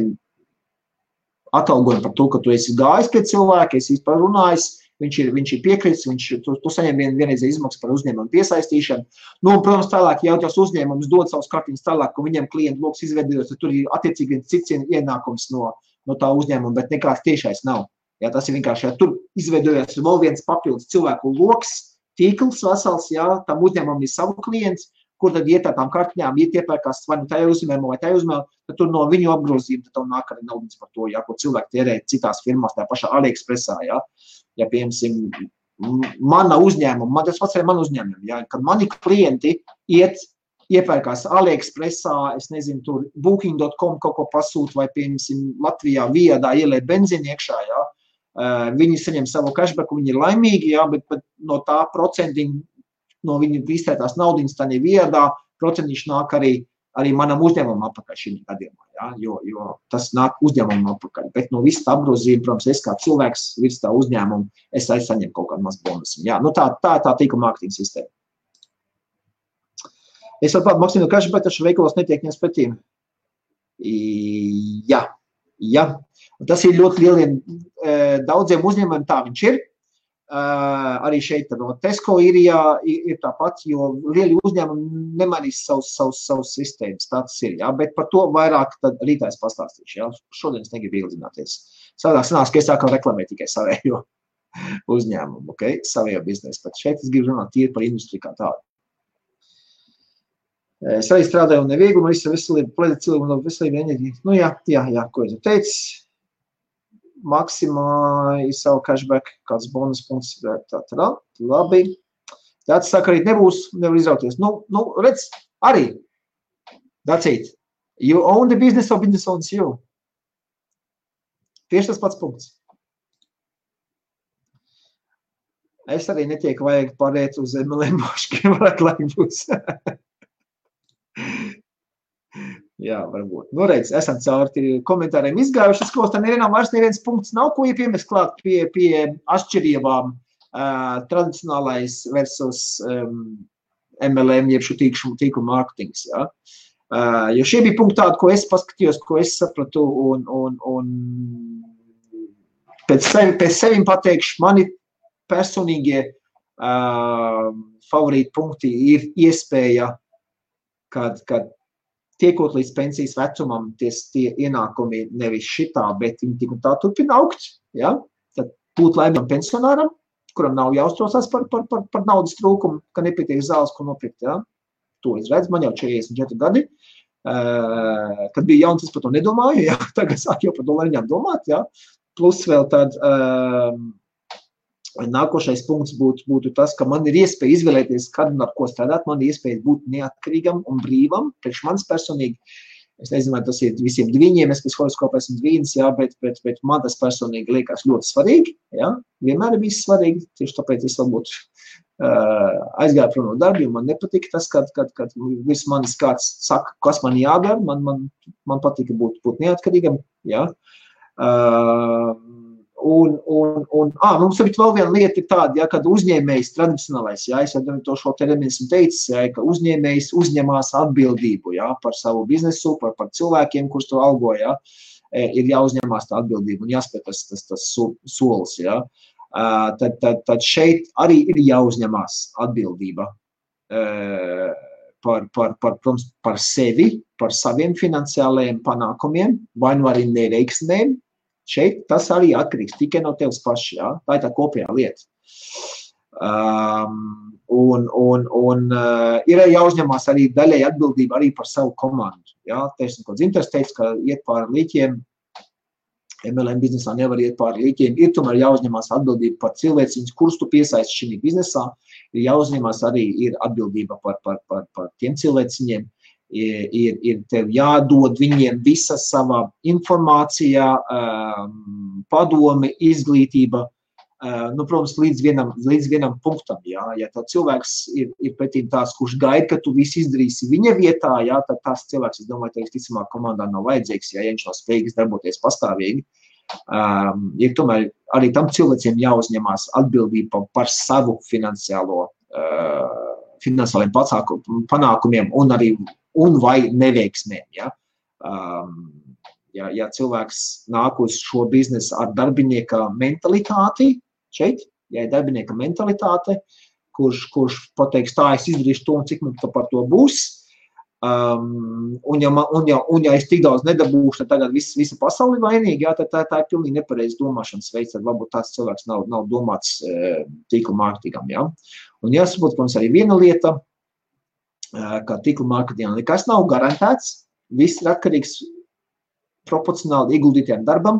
[SPEAKER 1] atalgojumu par to, ka tu esi gājis pie cilvēka, esi vispār runājis, viņš ir piekritis, tu saņem vienreizēju izmaksu par uzņēmumu piesaistīšanu. Nu, un, protams, tālāk, ja tos uzņēmumus dod savus kartiņus tālāk, ka viņiem klientu loks izveidojos, tad tur ir attiecīgi viens cits ienākums no tā uzņēmuma, bet nekāds tiešais nav. Jā, tas ir vienkārši, ja tur izveidojās vēl viens papildus cilvēku loks, tīkls vesels, jā, tam uzņēmumam ir savu klients, kur tad iet tām kartiņām, iepērkās vai nu tajā uzņēmumā vai tajā uzņēmumā, tad tur no viņu apgrozījuma, tad tev nāk arī naudas par to, jā, ko cilvēki tērē citās firmās, tā pašā AliExpressā, jā. Ja, piemēram, mana uzņēmuma, tas pats arī man uzņēmumi, ja, kad mani klienti iepērkās AliExpressā, es nezinu, tur booking.com kaut ko pasūt, vai, piemēram, Latvijā viedā ielē benzīni iekšā, ja, viņi saņem savu cashbacku, viņi ir laimīgi, ja, bet no tā procentiņa, no viņu iztērētās naudiņas, tā neviedā, procentiņš nāk arī manam uzņēmumam apakaļ šī gadījumā, ja, jo tas nāk uzņēmumam apakaļ, bet no visa tā apgrozījuma, protams, es kā cilvēks virs tā uzņēmuma, es saņemu kaut kādu mazu bonusu. Ja, nu tā tīkla mārketinga sistēma. Es vēl tādu maksīnu kašu, bet taču veikalos netiek ņemts pretī. Jā. Tas ir ļoti lieliem, daudziem uzņēmumiem tā viņš ir. Arī šeit no Tesco ir tāpat, jo lieli uzņēmumi nemainīs savus sistēmas, tā tas ir, jā, bet par to vairāk tad rītā es pastāstīšu, jā, šodien es negribu ieldzināties. Savādāk sanās, ka es sākam reklamēt tikai savējo uzņēmumu, ok, savējo biznesu, bet šeit es gribu runāt tīri par industriju kā tādu. Es arī strādāju un neviegli, un visu veselību, plēdēt cilvēku no veselību enerģiju. Nu jā, ko es teicu. Maksimā ir savu cashback, kāds bonus punkts, labi. Tāds saka, arī nevar izrauties. Nu, redz, arī, that's it. You own the business or business owns you. Tieši tas pats punkts. Es arī netieku vajag pārēt uz MLM moškiem, varētu laik būs. Jā, varbūt. Nu, redz, esam cauri komentāriem izgājuši, es kaut tā nevienam vairs neviens punkts nav, ko iepiemēs klāt pie atšķirībām tradicionālais versus MLM, jeb šo tīklu mārketings, jā. Jo šie bija punkti tādi, ko es paskatījos, ko es sapratu, un pēc sevim pateikšu, mani personīgie favorīti punkti ir iespēja, kad tiekot līdz pensijas vecumam, tie ienākumi nevis šitā, bet viņi tik un tā turpina augt, ja? Tad būt laimīgam pensionāram, kuram nav jāuztraucās par naudas trūkumu, ka nepietiek zāles, ko nopirkt, ja? To es redzu, man jau 44 gadi, kad bija jauns, es par to nedomāju, ja? Tagad sāk jau par dolariņām domāt, ja? Plus vēl tad nākošais punkts būtu tas, ka man ir iespēja izvēlēties, kad un ar ko strādāt, man ir iespēja būt neatkarīgam un brīvam, priekš manis personīgi, es nezinu, vai tas ir visiem dviņiem, es pēc horoskopa esmu dvīnis, jā, bet man tas personīgi liekas ļoti svarīgi, jā, vienmēr ir bijis svarīgi, tieši tāpēc es varbūt aizgāju prom no darba, jo man nepatika tas, kad virs manis kāds saka, kas man jādara, man patika būt neatkarīgam, jā. Mums ir vēl viena lieta ir tāda, ja, kad uzņēmējs tradicionālais, ja, es jau to šo terminu esmu teicis, ja, ka uzņēmējs uzņemās atbildību, ja, par savu biznesu, par cilvēkiem, kurus to algo, ja, ir jāuzņemās tā atbildība un jāspēj tas solis, ja. Tad šeit arī ir jāuzņemās atbildība par sevi, par saviem finansiālajiem panākumiem, vai nu arī neveiksmēm. Šeit tas arī atkarīgs tikai no tevis paši, jā? Tā ir tā kopējā lieta. Ir jāuzņemās arī daļai atbildība arī par savu komandu. Jā? Teiksim, ko Dzintars teica, ka iet pāri līķiem, MLM biznesā nevar iet pāri līķiem, ir tomēr jāuzņemās atbildība par cilvēciņus, kurus tu piesaisti šī biznesā, ir jāuzņemās arī ir atbildība par tiem cilvēciņiem, ir tev jādod viņiem visa sava informācija, padome, izglītība, Nu, protams, līdz vienam punktam, jā. Ja tā cilvēks ir pretīm tās, kurš gaida, ka tu visu izdarīsi viņa vietā, jā, tad tās cilvēks, es domāju, teiks, ticamāk komandā nav vajadzīgs, ja viņš nav spējīgs darboties pastāvīgi. Ir tomēr arī tam cilvēciem jāuzņemās atbildība par savu finansiāliem panākumiem un vai neveiksmēm, ja. Ja cilvēks nāk uz šo biznesu ar darbinieka mentalitāti, šeit, ja ir darbinieka mentalitāte, kurš pateiks, tā es izdarīšu to un cik mums par to būs, un ja es tik daudz nedabūšu, tad tagad visa pasauli vainīgi, jā, tad tā ir pilnīgi nepareiz domāšanas veids, tad varbūt tāds cilvēks nav domāts tīkla mārketingam, jā. Un jāsaprot, protams, arī viena lieta, ka tīkla mārketingam nekas nav garantēts, viss ir atkarīgs proporcionāli ieguldītiem darbam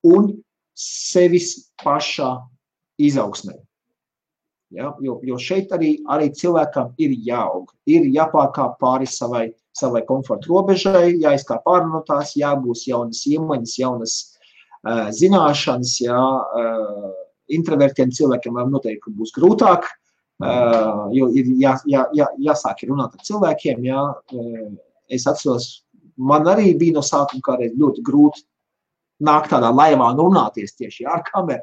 [SPEAKER 1] un sevis pašā izaugsmē. Ja? Jo šeit arī cilvēkam ir jāaug, ir jāpārkāp pāri savai komforta robežai, jāizkāp pāri no tās, jābūs jaunas iemaņas, jaunas zināšanas, introvertiem cilvēkiem noteikti būs grūtāk, jo ir jāsāk runāt ar cilvēkiem, es atceros, man arī bija no sākuma kādreiz ļoti grūti nākt tādā laivā un runāties tieši ar kameru.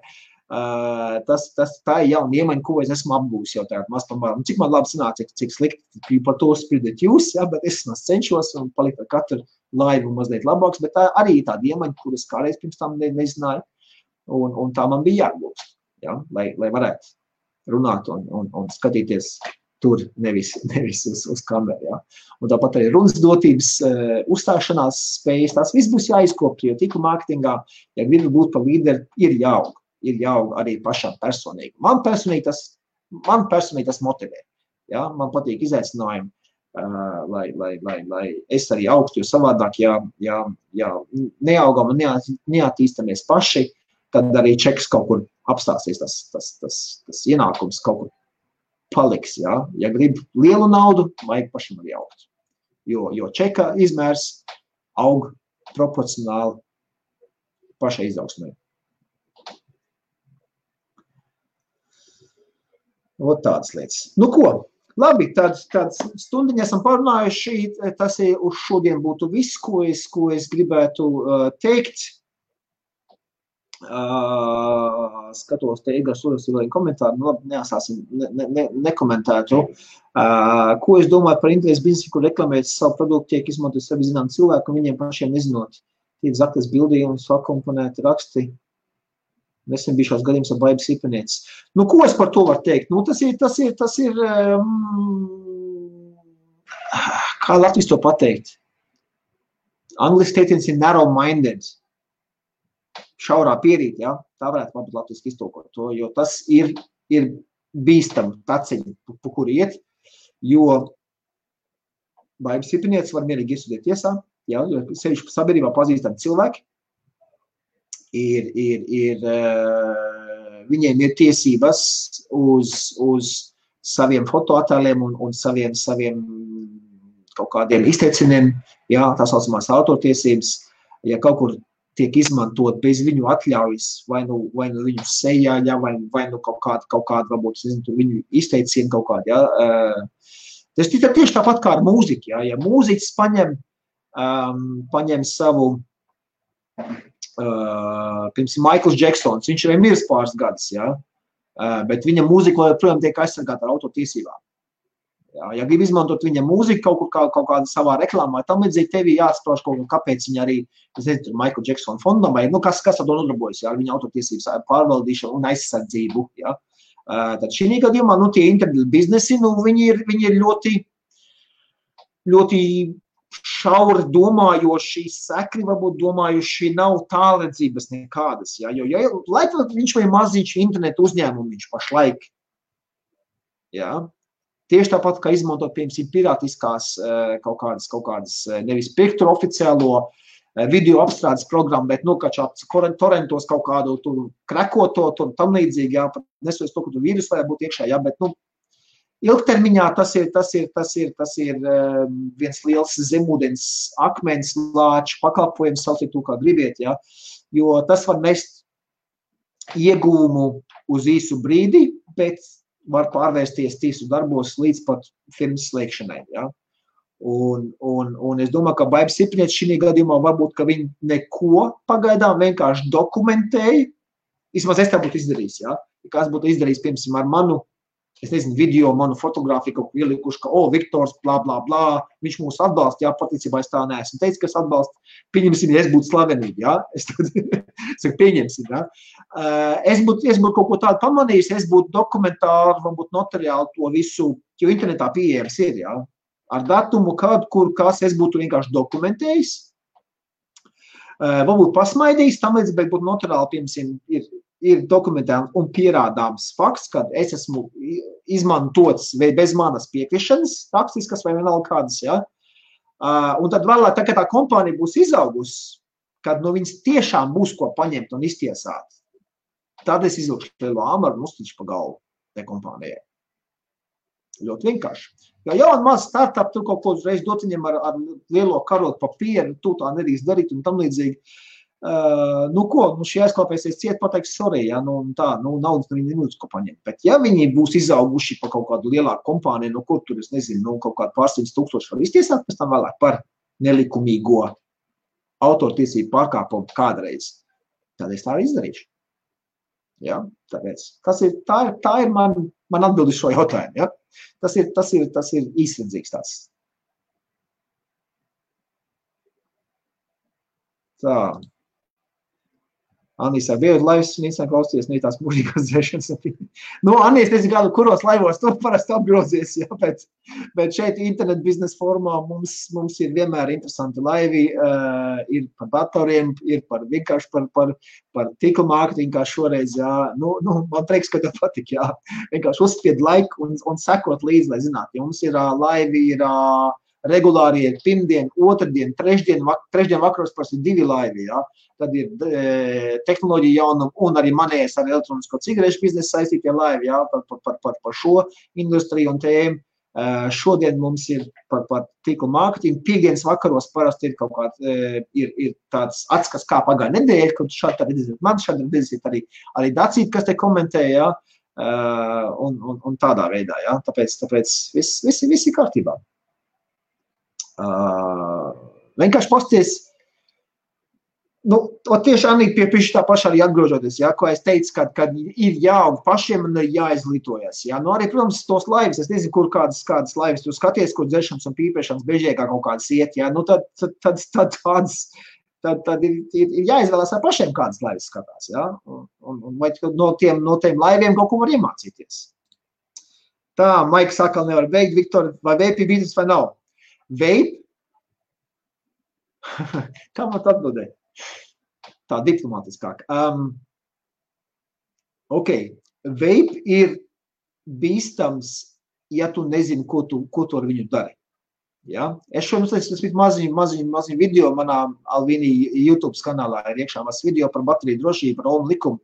[SPEAKER 1] Tā ir jauna iemaņa, ko es esmu apgūs jau tagad maz pamēram. Cik man labi sanāca, cik slikti par to spridēt jūs, bet es cenšos un palikt ar katru laivu mazliet labāks, bet tā arī ir tāda iemaņa, kuras kādreiz pirms tam nezināju, un tā man bija jāapgūst, lai varētu runāt un skatīties tur nevis uz kameru, jā. Un tāpat arī runas dotības, uzstāšanās spējas, tās viss būs jāizkopja, jo tīkla mārketingā, ja gribi būt par līderi, ir jāaug arī pašām personīgi. Man personīgi tas motivē, jā. Man patīk izaicinājumi, lai es arī augstu, jo savādāk, ja neaugam un neattīstamies paši, tad arī čeks kaut kur apstāsies, tas ienākums kaut kur paliks, jā. Ja grib lielu naudu, vajag pašam arī augt. Jo čeka izmērs aug proporcionāli pašai izaugsmē. Ot tādas lietas. Nu ko, labi, tad stundiņa esam parunājuši, tas uz šodien būtu viss, ko es gribētu teikt. Skatos, te Igars Uras ir vēl komentāri, nu labi, neasāsim, nekomentētu. Ko es domāju par interesi biznesu, kur reklamēt savu produktu, tiek izmantot sevi zinām cilvēku, un viņiem pašiem nezinot. Tiek zaktas bildījumi, sakomponēti raksti. Nesen bija šās gadījums ar baibas īpanieces. Nu, ko es par to varu teikt? Nu, tas ir, kā Latvijas to pateikt? Angliski teiciens ir narrow-minded. Šaurā pierīt, ja? Tā varētu varbūt latviski iztulkot to, jo tas ir bīstam taciņi, pa kuru iet, jo baibas īpanieces var mierīgi iesūdīt tiesā, ja? Jo sevišķi sabiedrībā pazīstami cilvēki, viņiem ir tiesības uz saviem fotoattēliem un saviem kaut kādiem izteiciniem, ja? Tā saucamās autortiesības, ja kaut kur tiek izmantot bez viņu atļaujas, vai nu viņu sejā, ja, vai nu kaut kāda varbūt, viņu izteicienu kaut kādu, ja. Tas tieši tāpat kā ar mūziku, ja mūziķis paņem savu, piemēram, Michaels Jacksons, viņš ir miris pāris gadus, ja, bet viņa mūzika joprojām tiek aizsargāta ar autortiesībām. Ja grib izmantot viņa mūziku kaut kādā savā reklāmā, tam līdzīgi tevi jāsprauž kaut kā, kāpēc viņa arī, es nezinu, Michael Jackson fondam, vai, nu, kas ar to nodarbojas, ja, ar viņa autortiesības pārvaldīšanu un aizsardzību, ja. Tad šī gadījumā, nu, tie internetu biznesi, nu, viņi ir ļoti šauri domājoši, sekri varbūt domājuši, nav tālredzības nekādas, ja, jo, lai viņš vai maziņš internetu uzņēmumiņš pašlaik, ja. Tieši tāpat, kā izmantot, piemēram, pirātiskās kaut kādas nevis pirkt oficiālo video apstrādes programmu, bet, nu, torrentos kaut kādu tur krekoto, tur tam līdzīgi, jā, nesoties to, ka tur vīrus varētu būt iekšā, jā, bet, nu, ilgtermiņā tas ir viens liels zemūdens akmens lāču pakalpojums, sauciet to, kā gribiet, jā, jo tas var mest iegūmu uz īsu brīdi, bet var pārvērsties tīsu darbos līdz pat firmas slēgšanai. Ja? Un es domāju, ka Baiba Sipriets šī gadījumā varbūt, ka viņi neko pagaidām vienkārši dokumentēja. Vismaz es tā būtu izdarījis. Ja? Kāds būtu izdarījis, piemēram, ar manu, es nezinu, video, manu fotogrāfiju, kaut ko ielikuši, ka, Viktors, blā, blā, blā, viņš mūs atbalsta, jā, paticībā es tā neesmu teicis, ka es atbalstu, pieņemsim, ja es būtu slavenība, jā, es saku, pieņemsim, jā. Es būtu kaut ko tādu pamanījis, es būtu dokumentāri, varbūt notariāli to visu, jo internetā pieejams ir, jā, ar datumu, kad, kur, kas, es būtu vienkārši dokumentējis, varbūt pasmaidījis, tam līdz, bet būtu notariāli, piemēram, ir dokumentēts un pierādāms fakts, ka es esmu izmantots bez manas piekrišanas, rakstiskas vai vienalga kādas, ja? Un tad vēlāk, tā, kad tā kompānija būs izaugusi, kad no viņas tiešām būs ko paņemt un iztiesāt, tad es izlūkšu lielu āmaru un uztiču pa galvu tai kompānijai. Ļoti vienkārši. Jo jau un maz startup tur kaut ko uzreiz dot viņam ar lielo karotu papieru, tu tā nedrīkst darīt un tam līdzīgi. Šī aizklāpēsies ciet, pateiks, sorry, ja, naudas viņi nemūs ko paņemt. Bet ja viņi būs izauguši pa kaut kādu lielāku kompāniju, no kur tur, es nezinu, kaut kādu pārsimts tūkstoši var iztiesāt, pēc tam vēlāk par nelikumīgo autortiesību pārkāpumu kādreiz. Tad es tā arī izdarīšu. Ja, tāpēc tā ir man atbildi šo jautājumu. Ja? Tas ir īsredzīgs tāds. Tā. Anīs ar biedu laivas un īstenībā klausties tās mūžīgās dzēšanas. Anīs, nezinu, kuros laivos tu parasti apgrozies, ja, bet šeit internet biznesa formā mums ir vienmēr interesanti laivi, ir par datoriem, ir vienkārši par tīkla mārketingu, kā šoreiz, jā. Man prieks, ka tev patik, jā. Vienkārši uzspied laiku un sekot līdzi, lai zinātu. Ja mums ir laivi, ir regulāri ir pirmdien, otrdien, trešdien vakaros parasti 2 laivi, jā. Tad ir tehnoloģija jaunuma un arī manējais ar elektronisko cigarešu biznesu saistītie laivi, jā, par šo industriju un tēmu. Šodien mums ir par tīklu mārketingu. Piekdienas vakaros parasti ir kaut kāds, ir tāds atskats, kā pagāja nedēļa, kad šādi redzēt man, šādi redzēt arī Dacīti, kas te komentē, jā, un tādā veidā, jā. Tāpēc viss ir kārtībā. Vienkārši pasties, tieši Anī pie tā pašā arī atgrožoties, ja, ko es teicu, kad ir jāaug pašiem un ir jāizglītojas. Ja. Arī, protams, tos laivas, es nezinu, kur kādas laivas tu skaties, kur dzeršanas un pīpēšanas bežiekā kaut kādas iet, ja, tad ir jāizvēlās ar pašiem kādas laivas skatās, ja, un vai no tiem laiviem kaut ko var iemācīties. Tā, Maiks atkal nevar beigt, Viktor, vai vape ir biznes vai nav? Vape? Kā man atbildēt? Tā diplomātiskāk. Vape ir bīstams, ja tu nezini, ko tu ar viņu dari. Ja? Es šodien maziņu video manā Alvini YouTube kanālā ir iekšā mazs video par bateriju drošību, par ohmu likumu.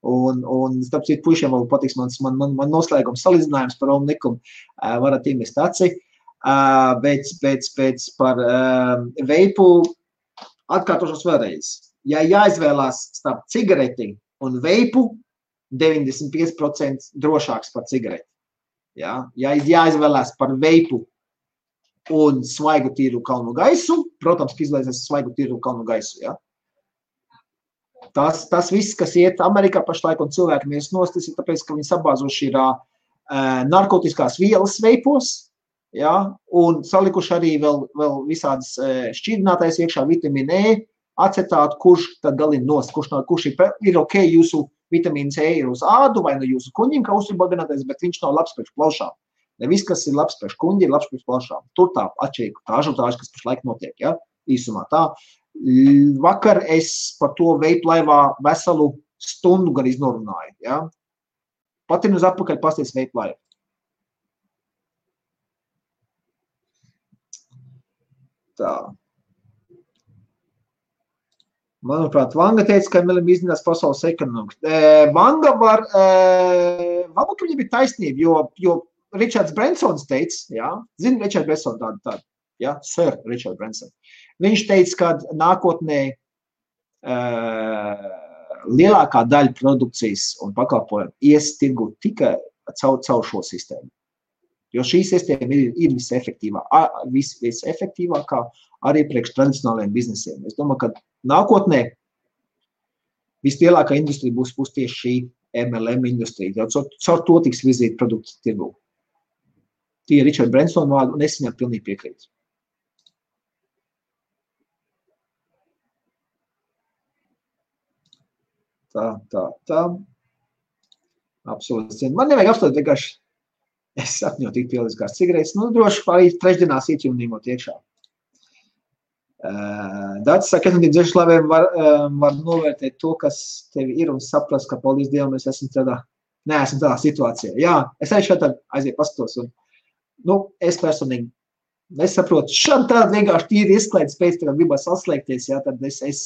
[SPEAKER 1] Un starp citu puišiem vēl patiks man noslēgums salīdzinājums par ohmu likumu. Varat iemest aci. Bet par veipu atkārtošos vēlreiz. Ja jāizvēlās starp cigareti un veipu, 95% drošāks par cigareti. Ja jāizvēlās par veipu un svaigu tīru kalnu gaisu, protams, ka izvēlēsies svaigu tīru kalnu gaisu. Ja? Tas viss, kas iet Amerikā pašlaik un cilvēki mēs nost, tas ir tāpēc, ka viņi sabāzuši ir narkotiskās vielas veipos, ja? Un salikuši arī vēl visādas šķidrinātais iekšā vitamīna E, acetātu, kurš tad galina nost, kurš ir ok, jūsu vitamīns E ir uz ādu vai no jūsu kuņiem, kā uzturbaginātais, bet viņš nav labs pēc plaušām. Ne viss, kas ir labs pēc kuņi, ir labs pēc plaušām. Tur tā atšķirīga tā ažotāža, kas pašlaik notiek, ja? Īsumā tā. Vakar es par to veipu laivā veselu stundu gan iznorunāju, ja? Patin uz atpakaļ pasties veipu laivu. Tā. Manuprāt, Vanga teica, ka Milim izdinās pasaules ekonomiku. Vanga varbūt viņam ir taisnība, jo Richards Bransons teica, ja, zini Richard Branson tādu, ja, Sir Richard Branson. Viņš teica, ka nākotnē lielākā daļa produkcijas un pakalpojumu ies tirgu tikai caur šo sistēmu. Jo šī sistēma ir visefektīvākā arī priekš tradicionālajiem biznesiem. Es domāju, ka nākotnē vislielākā industrija būs tieši šī MLM industrija. Caur to tiks virzīt produktu tirgu. Tie ir Richard Branson vārdi, un es viņam pilnīgi piekrītu. Tā. Absolūti. Man nevajag apstāties vienkārši. Es sapņoju tik pieliskās cigaretes. Droši arī trešdienās ietjumnīmot iekšā. Dācis saka, ka dzeršlaviem var novērtēt to, kas tevi ir un saprast, ka paldies Dievam, mēs esam tādā situācijā. Jā, es arī šādi aiziet pastos. Un, es personīgi nesaprotu. Šādi vienkārši tīri izklaides pēc, kad gribas atslēgties, jā, tad es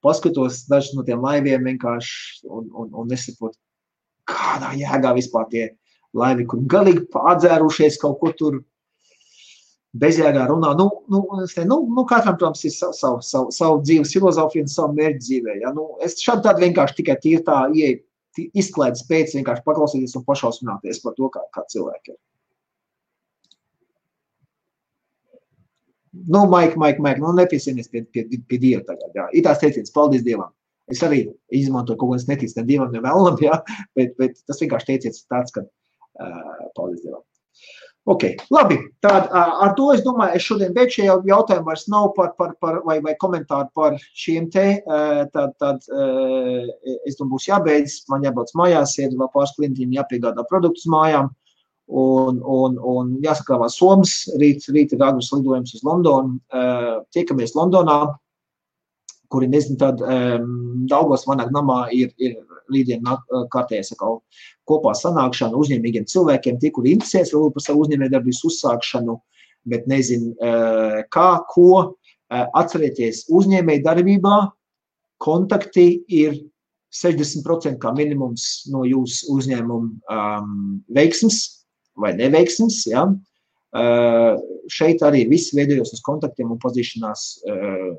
[SPEAKER 1] paskatos dažus no tiem laiviem vienkārši un nesaprotu, kādā jēgā vispār tie laivi, kur galīgi pārdzērušies kaut ko tur bezjēgā runā. Katram, protams, ir savu dzīves filozofiju un savu mērķi dzīvē. Ja? Es šādi vienkārši tikai tīri tā izklaides pēc vienkārši paklausīties un pašausmināties par to, kā cilvēki ir. Maik, nepiesienies pie Dieva tagad. Jā. Ir tās teiciens, paldies Dievam. Es arī izmantoju kaut ko, es neticu ne Dievam, ne vēlam, jā, bet tas vienkārši teiciens tāds, ka paldies Dievam. Ok, labi, tad ar to es domāju, es šodien beidzu šie jautājumi vairs nav vai komentāri par šiem te, tad es domāju, būs jābeidz, man jābrauc mājās, iet vēl pāris klientiem, jāpiegādā produktus mājām. Un jāsakrāvā Somas, rīt ir agras lidojums uz Londonu, tiekamies Londonā, kuri nezinu, tad Daugavas Vanag namā ir rītdien kārtējais kopā sanākšana uzņēmīgiem cilvēkiem, tie, kuri interesēs vēl par savu uzņēmējdarbības uzsākšanu, bet nezinu kā, ko. Atcerieties, uzņēmējdarbībā kontakti ir 60% kā minimums no jūsu uzņēmuma veiksmes vai neveiksmes, ja. Šeit arī viss veidojos uz kontaktiem un pazīšanās,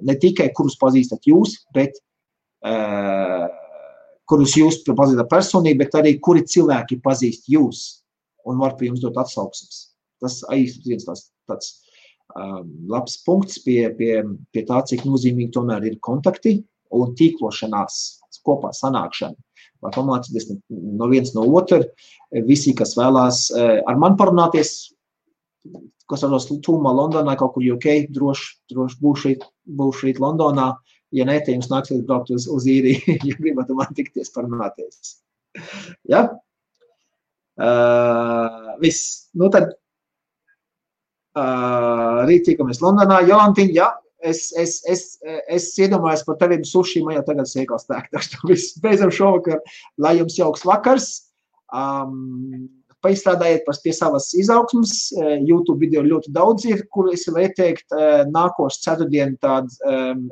[SPEAKER 1] ne tikai kurus pazīstat jūs, bet kurus jūs pazīstat personīgi, bet arī kuri cilvēki pazīst jūs un var pie jums dot atsauksmes. Tas arī viens tāds labs punkts pie tā, cik nozīmīgi tomēr ir kontakti un tīklošanās, kopā sanākšana. Vai pamācīties no viens no otru, visi, kas vēlās ar mani parunāties, kas varos tūmā Londonā, kaut kur UK, droši būšu rīt Londonā, ja ne, te jums nāksies braukt uz īriju, ja gribat man tikties parunāties. Ja? Viss. Tad rīt tiekamies Londonā. Jolantiņ, ja? Es iedomājos par teviem suši, man jau tagad sēkās tēk. Viss beidzam šovakar, lai jums jauks vakars. Paizstrādājiet pie savas izaugsmas. YouTube video ļoti daudz ir, kur es varu ieteikt nākošu ceturtdienu tādu,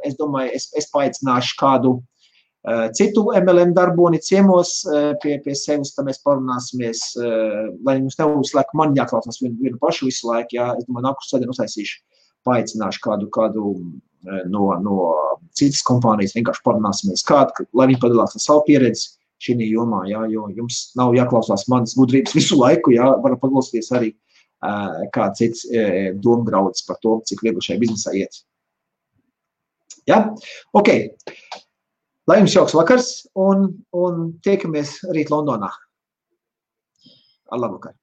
[SPEAKER 1] es domāju, es paaicināšu kādu citu MLM darboni ciemos pie sevis, tad mēs parunāsimies, lai jums neuzslēk man jāklausās vienu pašu visu laiku, jā, es domāju, nākošu ceturtdienu uztaisīšu. Paaicināšu kādu no citas kompānijas, vienkārši parunāsimies lai viņi padalās ar savu pieredzi šī jomā, jā, jo jums nav jāklausās manas gudrības visu laiku, jā, varat paklausīties arī kā cits domgrauds par to, cik viegli šajā biznesā iet. Jā? Ok. Lai jums jauks vakars un tiekamies rīt Londonā. Ar labvakar.